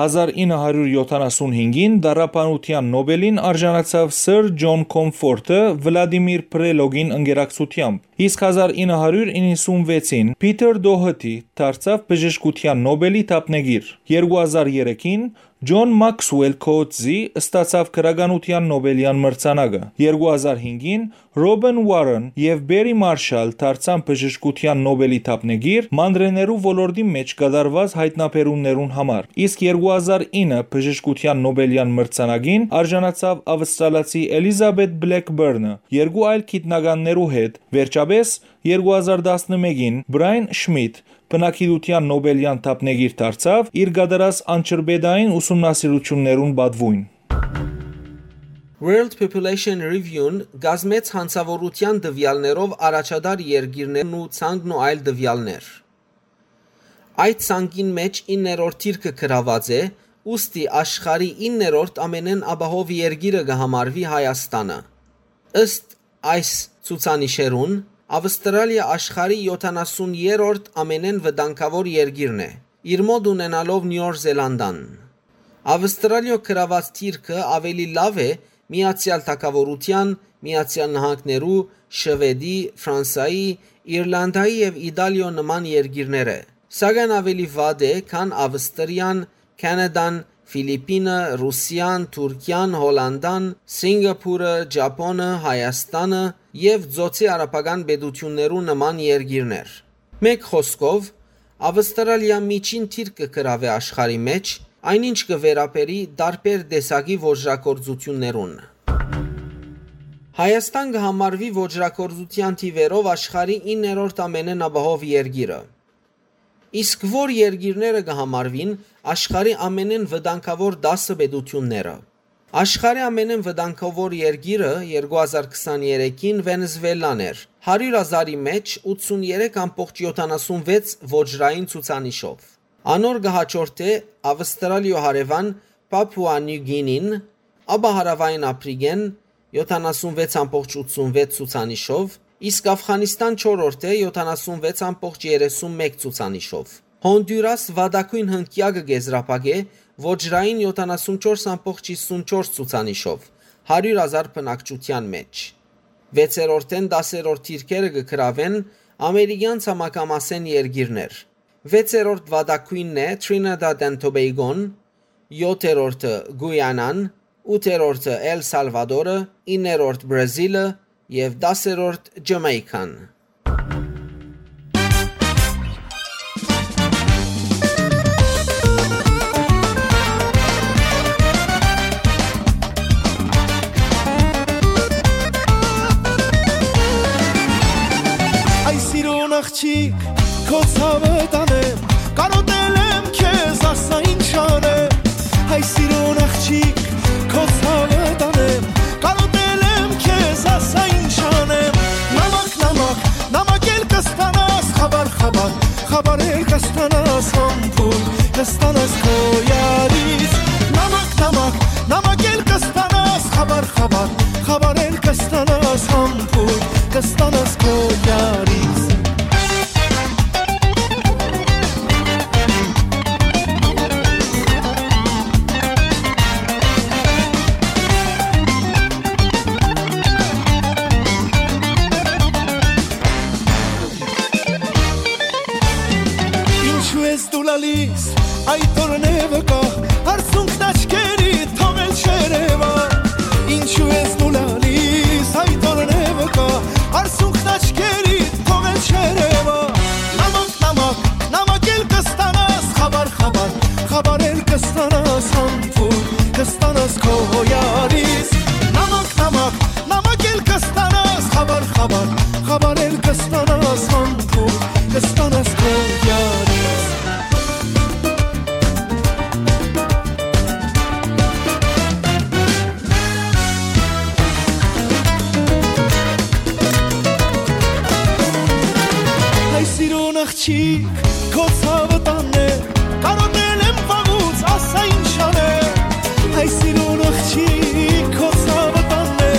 Հազար ինը հարիւր յոթանասուն հինգին Տառապանութեան Նոբելին արժանացաւ Սըր Ջոն Կոմֆորտը Վլադիմիր Պրելոգին ընկերակցութեամբ, իսկ հազար ինը հարիւր իննսուն վեցին Փիթըր Դոհըթի դարձաւ բժշկութեան Նոբելի դափնեկիր։ Երկու հազար երեքին Ջոն Մաքսուել Քոուտզի ստացաւ գրականութեան Նոբելեան մրցանակը։ Երկու հազար հինգին Ռոբեն Ուարեն եւ Պերի Մարշալ դարձան բժշկութեան Նոբելի դափնեկիր մանրէներու ոլորտի մէջ կատարուած յայտնաբերումներուն համար, իսկ երկու հազար ինը բժշկութեան Նոբելեան մրցանակին արժանացաւ աւստրալացի Էլիզաբեթ Բլեքբըրնը երկու այլ գիտնականներու հետ, վերջապէս երկու հազար տասնմէկին Բրայան Շմիտ բնակիդութեան Նոբելեան դափնեկիր դարձաւ իր կատարած անջրպետային ուսումնասիրութիւններուն պատուոյն։ World Population Review-ն կազմեց յանցաւորութեան տուեալներով առաջատար երկիրներն ու ցանկն ու այլ տուեալներ։ Այդ ցանկին մէջ իններորդ դիրքը գրաւած է, ուստի աշխարհի իններորդ ամենէն ապահով երկիրը կը համարուի Հայաստանը։ Ըստ այս ցուցանիշերուն, Աւստրալիա աշխարհի յոթանասուն երրորդ ամենէն վտանգաւոր երկիրն է, իր մօտ ունենալով Նիւոր Զելանդան։ Աւստրալիոյ գրաւած դիրքը աւելի լաւ է Միացեալ Թագաւորութեան, Միացեալ Նահանգներու, Շուէդի, Ֆրանսայի, Իրլանդայի եւ Իտալիոյ նման երկիրներէ, սակայն աւելի վատ է, քան Աւստրիան, Քանադան, Ֆիլիպինը, Ռուսիան, Թուրքիան, Հոլանդան, Սինկապուրը, Ճապոնը, Հայաստանը եւ Ծոցի արաբական պետութիւններու նման երկիրներ։ Մէկ խօսքով, Աւստրալիա միջին դիրք կը գրաւէ աշխարհի մէջ, այնինչ կը վերաբերի տարբեր տեսակի ոճրագործութիւններուն։ Հայաստան կը համարուի ոճրագործութեան թիւերով աշխարհի իններորդ ամենէն ապահով երկիրը։ Իսկ ո՞ր երկիրները կը համարուին աշխարհի ամենէն վտանգաւոր տասը պետութիւնները։ Աշխարհի ամենէն վտանգաւոր երկիրը երկու հազար քսաներեքին Վենեզուելան էր, հարիւր հազարի մէջ ութսուն երեք ամբողջ յոթանասուն վեց ոճրային ցուցանիշով։ Անոր կը յաջորդէ Աւստրալիոյ հարեւան Պապուա Նիու Գինին, ապա Հարաւային Ափրիկեն, յոթանասուն վեց ամբողջ ութսուն վեց ցուցանիշով, իսկ Աֆղանիստան չորրորդ է, յոթանասուն վեց ամբողջ երեսուն մէկ ցուցանիշով։ Հոնդուրաս վատագոյն հնկեակը կ'եզրափակէ ոճրային յոթանասուն չորս ամբողջ հիսուն չորս ցուցանիշով, հարիւր հազար բնակչութեան մէջ։ Վեցերորդէն տասերորդ դիրքերը կը գրաւեն ամերիկեան ցամաքամասէն երկիրներ։ Վեցերորդ վատագոյնն է Trinidad and Tobago-ն, յոթերորդը Գուիանան, ութերորդը Էլ Սալվադորը, իններորդ Բրազիլը եւ տասերորդ Ջամայքան։ Այս իրուն աղջիկ, քո ցաւը տանեմ, կարոտել եմ քեզ, ասա ինչ անեմ։ Հայ սիրուն աղջիկ, քո ցաւը տանեմ, կարոտել եմ քեզ, ասա ինչ անեմ։ Նամակ, նամակ, նամակ էլ կստանաս, խաբար, խաբար, խաբար էլ կստանաս, համբույր կստանաս քո յարից։ Նամակ, նամակ, նամակ էլ կստանաս, խաբար, խաբար, խաբար էլ կստանաս, համբույր կստանաս քո յարից։ Լալիս, այդ օրն է վկայ, արցունքն աչքերի թողել չերևա։ Ինչու ես դու լալիս, այդ օրն է վկայ, արցունքն աչքերի թողել չերևա։ Նամակ, նամակ, նամակ էլ կստանաս, խաբար, խաբար, խաբար էլ կստանաս, համբույր կստանաս քո յարից։ Նամակ, նամակ, նամակ էլ կստանաս, խաբար, խաբար, խաբար էլ կստանաս, համբույր կստանաս քո յարից։ Հայ սիրուն աղջիկ, քո ցաւը տանն է, կարոտել եմ վաղուց, ասա ինչ անեմ։ Հայ սիրուն աղջիկ, քո ցաւը տանն է,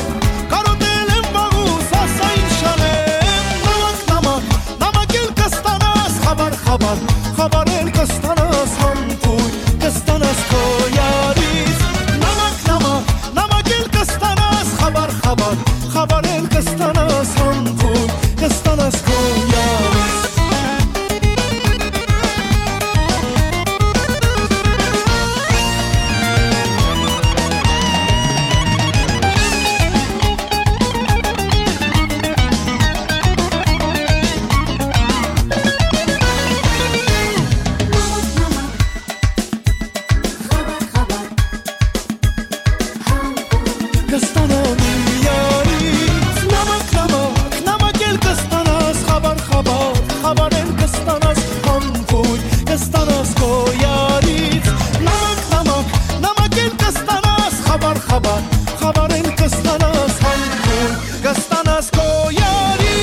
կարոտել եմ վաղուց, ասա ինչ անեմ։ Նամակ, նամակ, նամակ էլ կստանաս, խաբար, խաբար, խաբար էլ կստանաս, համբույր կստանաս քո յարից։ Նամակ, նամակ, նամակ էլ կստանաս, խաբար, խաբար, խաբար էլ կստանաս, համբույր կստանաս քո յարից։ Կստանամ յարից նամակ, նամակ, նամակ էլ կստանաս, խաբար, խաբար, խաբար էլ կստանաս, համբույր կստանաս քո յարից։ Նամակ, նամակ, նամակ էլ կստանաս, խաբար, խաբար, խաբար էլ կստանաս, համբույր կստանաս քո յարից։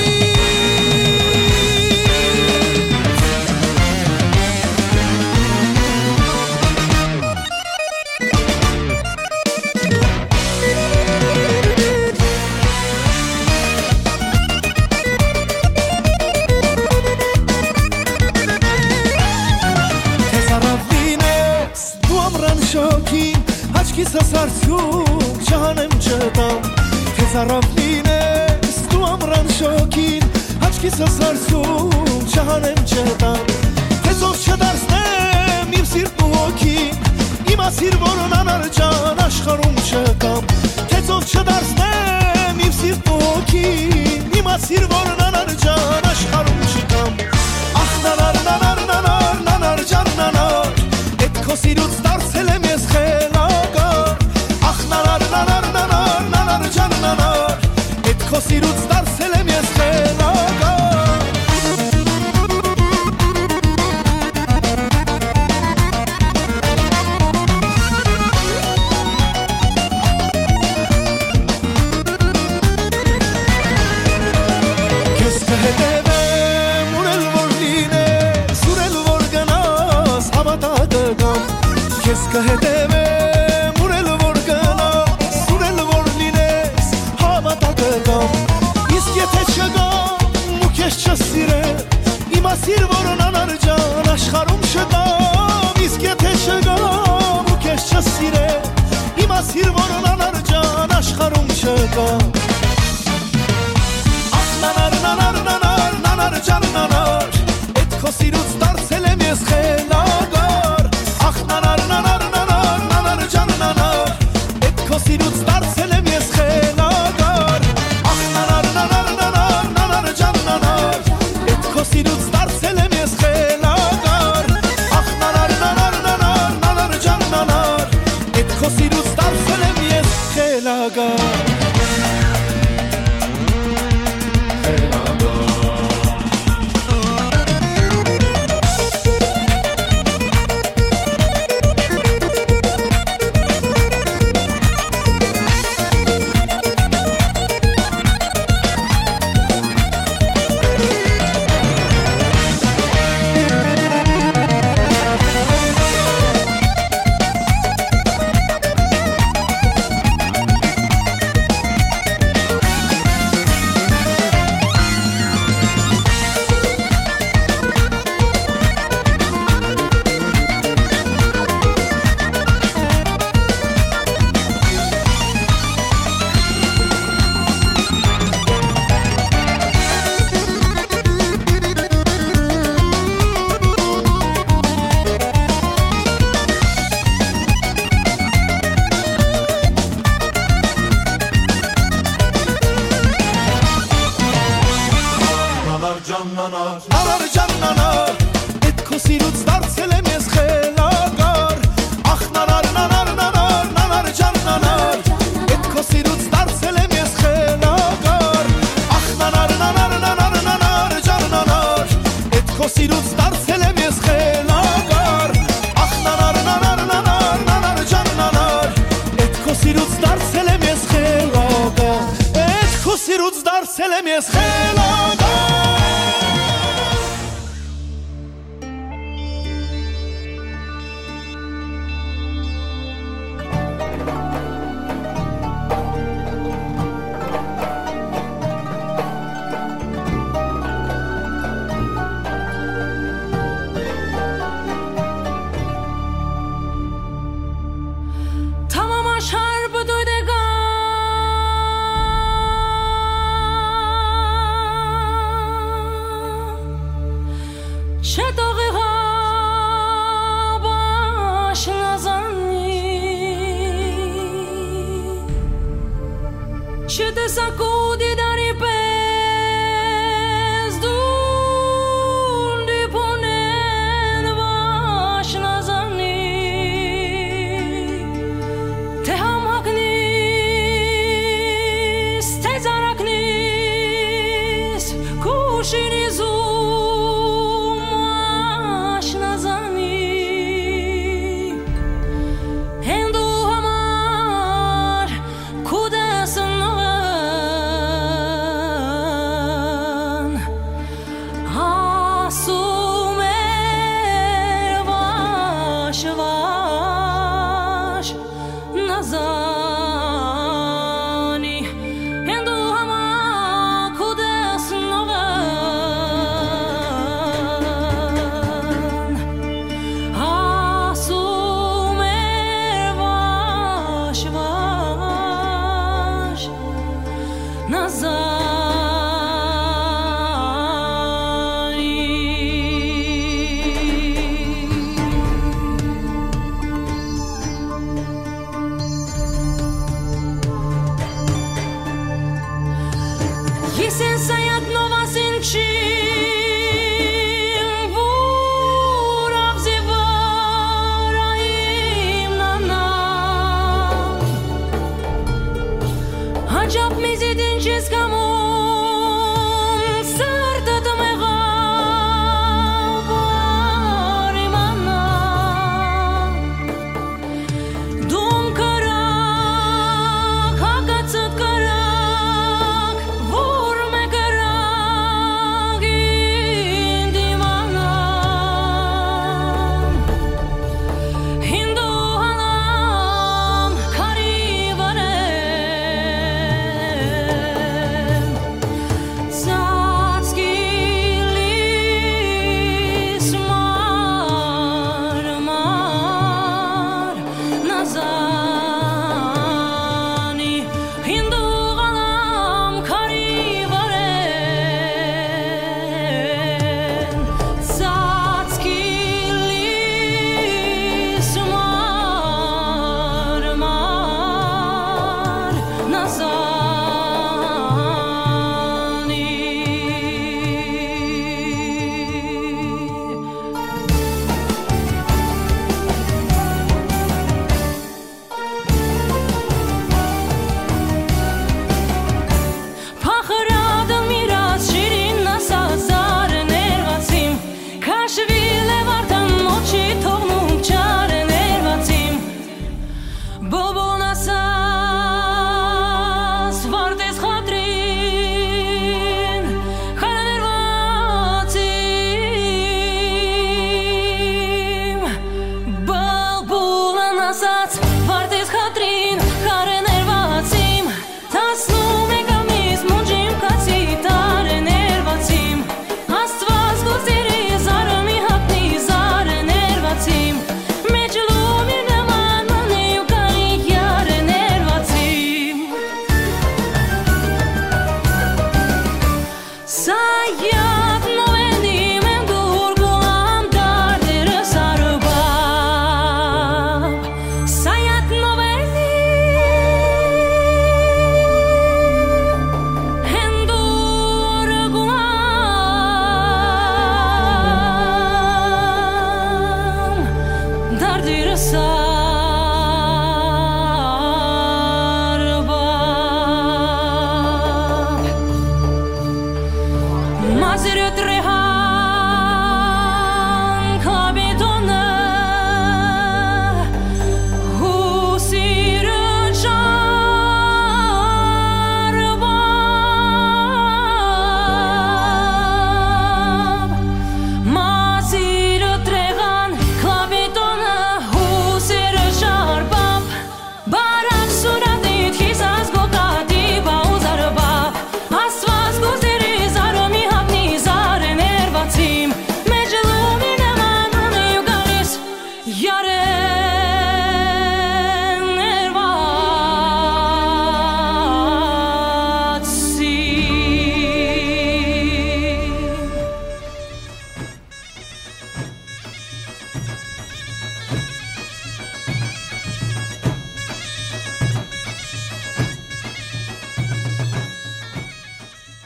Դու ամրան շոգին, աչքիս սարսում, չհանեմ չտամ։ Թե ծարաւ լինես դու ամրան շոգին, աչքիս սարսում, չհանեմ չտամ։ Թե ծով չդարձնեմ իմ սիրտն ու հոգին, իմացիր, որ անանար ջան աշխարհում չկամ։ Թե ծով չդարձնեմ իմ սիրտն ու հոգին, իմացիր, որ անանար ջան աշխարհում չկամ։ Ախ, նանար, նանար, նանար, նանար ջան, նանար, էդ քո սիրուց դարձել եմ ես խելագար։ Ախ, նանար, նանար, նանար, նանար ջան, նանար, էդ քո սիրուց դարձել եմ ես խելագար։ Քեզ կհետևեմ, ուր էլ որ լինես, ուր էլ որ գնաս, հավատա կգամ։ Քեզ կհետևեմ, ուր էլ որ գնաս, ուր էլ որ լինես, հավատա կգամ։ Իսկ եթե չգամ ու քեզ չսիրեմ, իմացիր, որ անանար ջան աշխարհում չկամ։ Իսկ եթե չգամ ու քեզ չսիրեմ, իմացիր, որ անանար ջան աշխարհում չկամ։ Ախ, նանար, նանար, նանար, նանար ջան, նանար, էդ քո սիրուց դարձել եմ ես խելագար։ Ախ, նանար, նանար, նանար, նանար ջան, նանար, էդ քո սիրուց դարձել եմ ես խելագար։ Ախ, նանար, նանար, նանար, նանար ջան, նանար, էդ քո սիրուց դարձել եմ ես խելագար։ Ախ, նանար, նանար, նանար, նանար ջան, նանար, էդ քո սիրուց դարձել եմ ես խելագար։ Դարձել եմ ես խելագար, ախ, նանար, նանար, նանար, նանար ջան, նանար։ Էդ քո սիրուց դարձել եմ ես խելագար, ախ, նանար, նանար, նանար, նանար ջան, նանար։ Էդ քո սիրուց դարձել եմ ես խելագար, ախ, նանար, նանար, նանար, նանար ջան, նանար։ Էդ քո սիրուց դարձել եմ ես խելագար, էդ քո սիրուց դարձել եմ ես խելագար։ Tamam aşar bu dudega.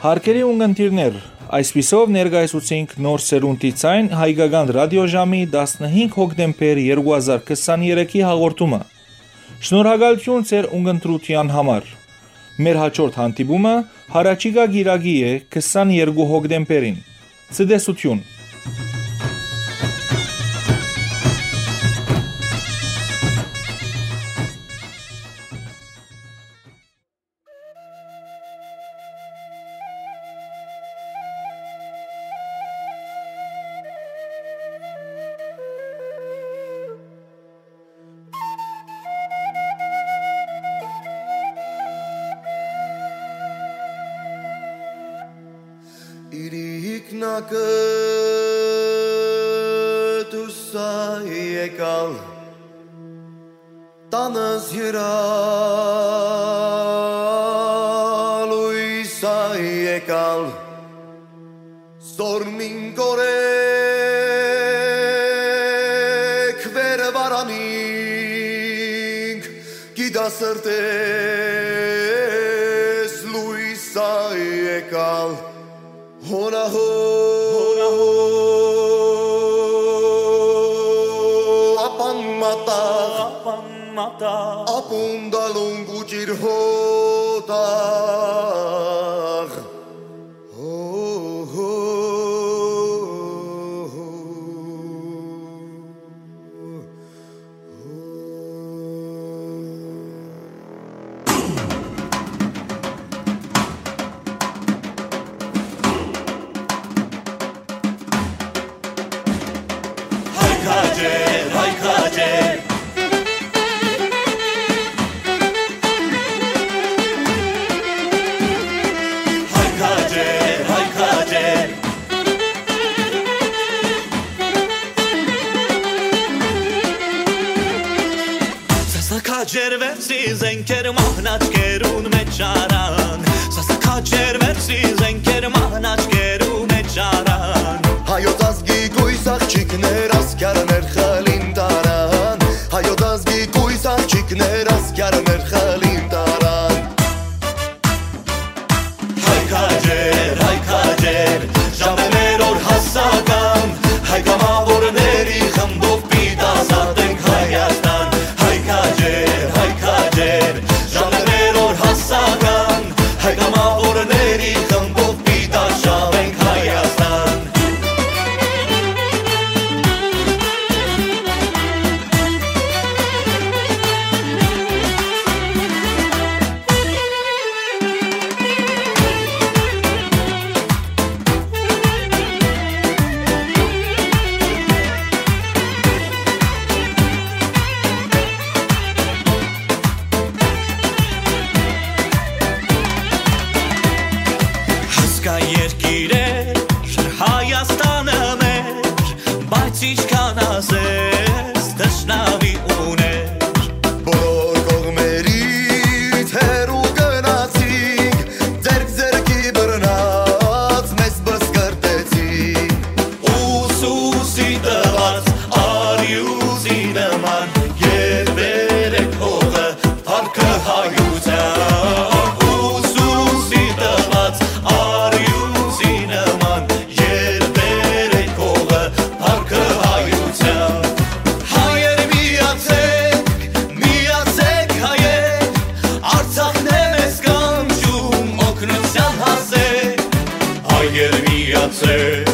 Հարգելի ունգընտիրներ, այսպիսով ներկայացուցինք Նոր Սերունդի Ձայն հայկական ռադիոժամի տասնհինգ հոկտեմբեր երկու հազար քսաներեքի հաղորդումը։ Շնորհակալութիւն ձեր ունգընտրութեան համար։ Մեր հաջորդ հանդիպումը յառաջիկայ կիրակի է, քսաներկու հոկտեմբերին։ Ցտեսութիւն։ Իրիկնակը դուսա եկալ, տանս յուրա լոյսա եկալ, զորմին կորեկ վեր վարանինք, գիտա սրտես լոյսա եկալ, հոնահո, հոնահո, ապան մատաղ, ապան մատաղ, ապուն դալուն գուճիր հոտաղ։ Հո, հո, հո, հո։ Հայ քաջեր, հայ քաջեր։ Հայ քաջեր, հայ քաջեր։ Սասա քաջեր վերցի զենքեր մահնաճկերուն մէջ առան։ Սասա քաջեր վերցի զենքեր մահնաճկերու մէջ առան։ Հայոց ազգի կոյս աղջիկներ ասկյարներ խլին տարան։ Հայոց ազգի կոյս աղջիկներ ասկյարներ խլին տարան։ Հայ քաջեր, հայ քաջեր, ժամեր օր հասական, հայ կամավորների խմբով պիտի ազատենք Հայաստան։ Հայ քաջեր, հայ քաջեր, ժամեր օր հասական, հայ կամավորների խմբով պիտի արշավենք Հայաստան։ Հասկայ երկիրեր, Հայաստանը մեր, բայց ինչքան ասես թշնամի ուներ։ Բոլոր կողմերից հեռու գնացինք, ձեռք ձեռքի բռնած մեզ բսկրտեցին։ Ուսուսի տված արիուսի նման, երբեր էք հողը, փառքը հայության։ Ուսուսի տված արիուսի նման, երբեր էք հողը, փառքը հայության։ Հայեր միացեք, միացեք հայեր, Արցախն է մեզ կանչում, օգնության հասեք։ Հայեր միացեք,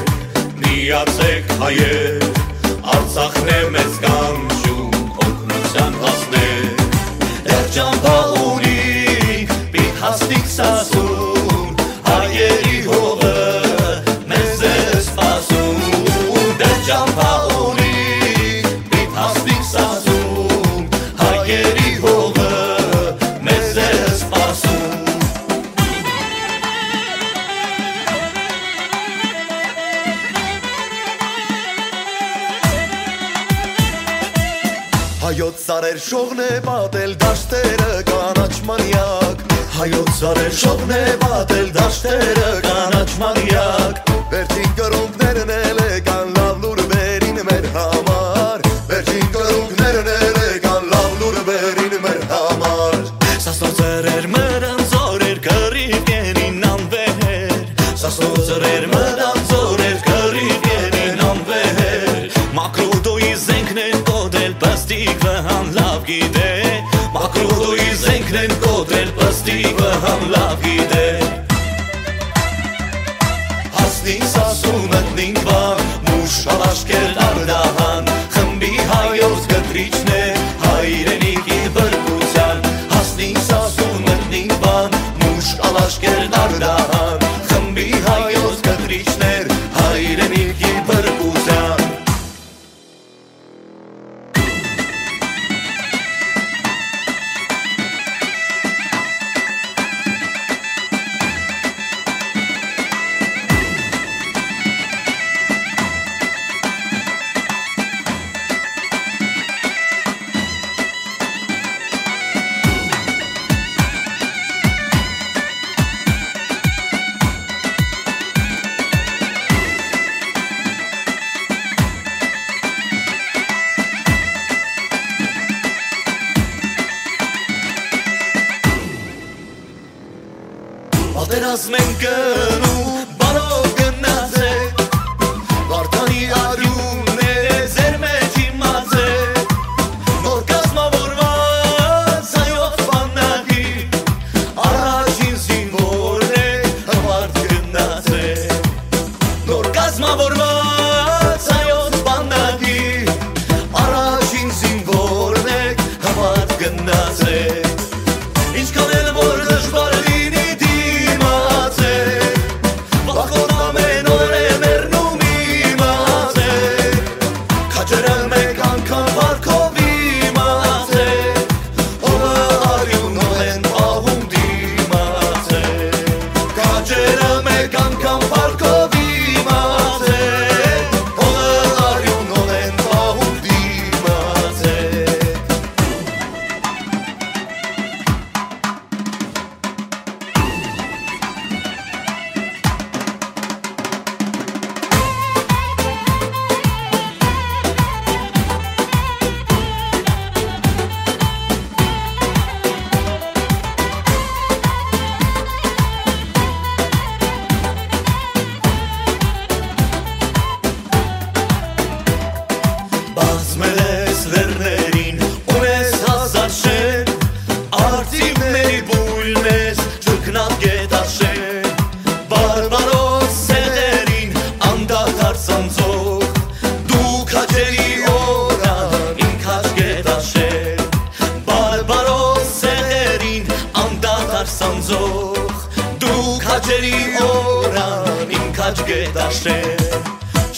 միացեք հայեր, Արցախն է մեզ կանչում, օգնության հասնեք։ Դեռ ճամփա ունինք, պիտի հասնենք Սասուն, հայերի հողը մեզ է սպասում։ Դեռ ճամփա ունինք, պիտի հասնենք Սասուն, հայերի հողը մեզ է սպասում։ Հայոց սարեր շողն է պատել դաշտերը կանաչ մանյակ։ Հայոց սարեր շողն է պատել դաշտերը կանաչ մանյակ։ Վերջին կռունկներն էլ եկան լաւ լուրվերին մեր համար։ Վերջին կռունկներն էլ եկան լաւ լուրվերին մեր համար։ Սասնոց սրեր մրան զորեր կռիվ կենին անվեր։ Կնեն կոտրել պստիվը համ լաւ գիտե։ Հասնին Սասուն, մտնին Վան, մուշ ալ աշկերտ Արդահան, խմբի հայոց կտրիչներ, հայրենիքի բրկության։ Հասնին Սասուն, մտնին Վան, մուշ ալ աշկերտ Արդահան, խմբի հայոց կտրիչներ, հայրենիքի բրկության։ Պատերազմ են գնում, բարով գնացեք, Վարդանի արիւնները ձեր մեջ իմացեք, նոր կազմավորված հայոց բանակի առաջին զինվորն է, հպարտ գնացեք։ Նոր կազմավորված հայոց բանակի առաջին զինվորն եք, հպարտ գնացեք։ Ինչքան էլ որ դժուար լինի, դիմացեք, վախկոտ ամեն օր է մեռնում, իմացեք, քաջերը մեկ անգամ վարկով իմացեք, Օղը արիւնով են պահում, դիմացեք։ Քաջերը մեկ անգամ վարկով իմացեք, օղը արիւնով են պահում, դիմացեք։ Բազմել ես լեռներին, ունես հազար շեն, արծիվների բույն ես, չքնած գետաշեն։ Բարբարոս սեղերին անդադար սանձող, դու քաջերի օրան իմ քաջ գետաշեն։ Բարբարոս սեղերին անդադար սանձող, դու քաջերի օրան իմ քաջ գետաշեն։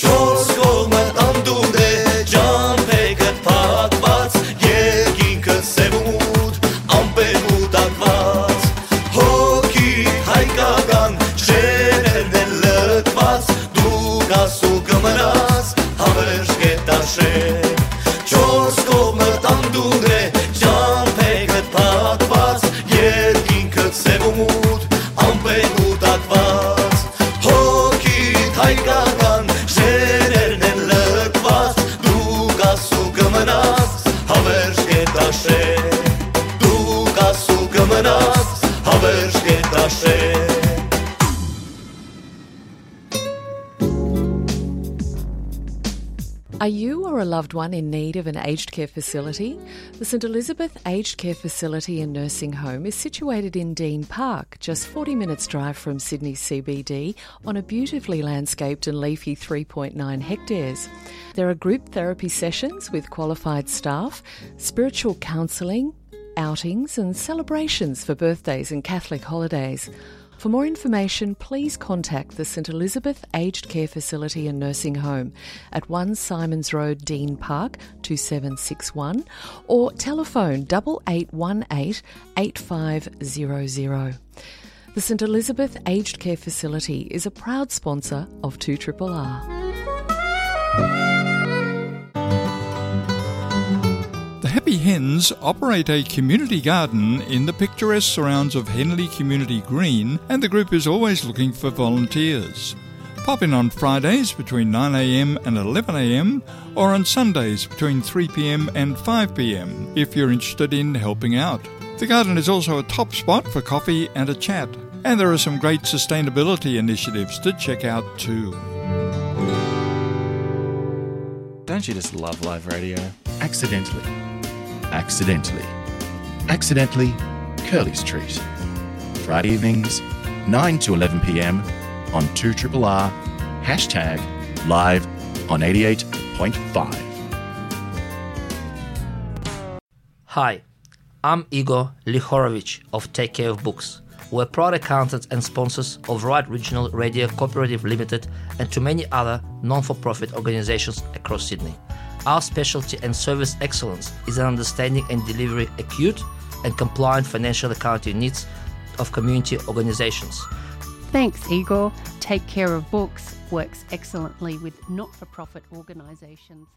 Չորս կողմը անդունդ է, ճամբեքդ փակված, երկինքը սեւ ու մութ, ամպեր կուտակված, հոգի հայկական շեներն են լքված, դու կաս ու կմնաս հավերժ գետաշեն։ Չորս կողմը անդունդ է, ճամբեքդ փակված, երկինքը սեւ ու մութ, ամպեր կուտակված, հոգիդ հայկական շեներն են լքված, դու կաս ու կմնաս հավերժ գետաշեն, դու կաս ու կմնաս հավերժ գետաշեն։ Are you or a loved one in need of an aged care facility? The St Elizabeth Aged Care Facility and Nursing Home is situated in Dean Park, just forty minutes drive from Sydney C B D, on a beautifully landscaped and leafy three point nine hectares. There are group therapy sessions with qualified staff, spiritual counselling, outings and celebrations for birthdays and Catholic holidays. For more information, please contact the St Elizabeth Aged Care Facility and Nursing Home at one Symonds Road, Dean Park, two seven six one, or telephone double eight one eight eight five zero zero. The St Elizabeth Aged Care Facility is a proud sponsor of two triple R. The Happy Hens operate a community garden in the picturesque surrounds of Henley Community Green, and the group is always looking for volunteers. Pop in on Fridays between nine a.m. and eleven a.m., or on Sundays between three p.m. and five p.m. if you're interested in helping out. The garden is also a top spot for coffee and a chat, and there are some great sustainability initiatives to check out too. Don't you just love live radio? Accidentally. Accidentally. Accidentally. Curley Street. Friday evenings, nine to eleven p.m. on two triple R, hashtag live on eighty-eight point five. Hi, I'm Igor Lihorovich of Take Care of Books. We're proud accountants and sponsors of Right Regional Radio Cooperative Limited and to many other non-for-profit organizations across Sydney. Our specialty and service excellence is an understanding and delivery acute and compliant financial accounting needs of community organizations. Thanks, Igor. Take Care of Books works excellently with not for profit organisations.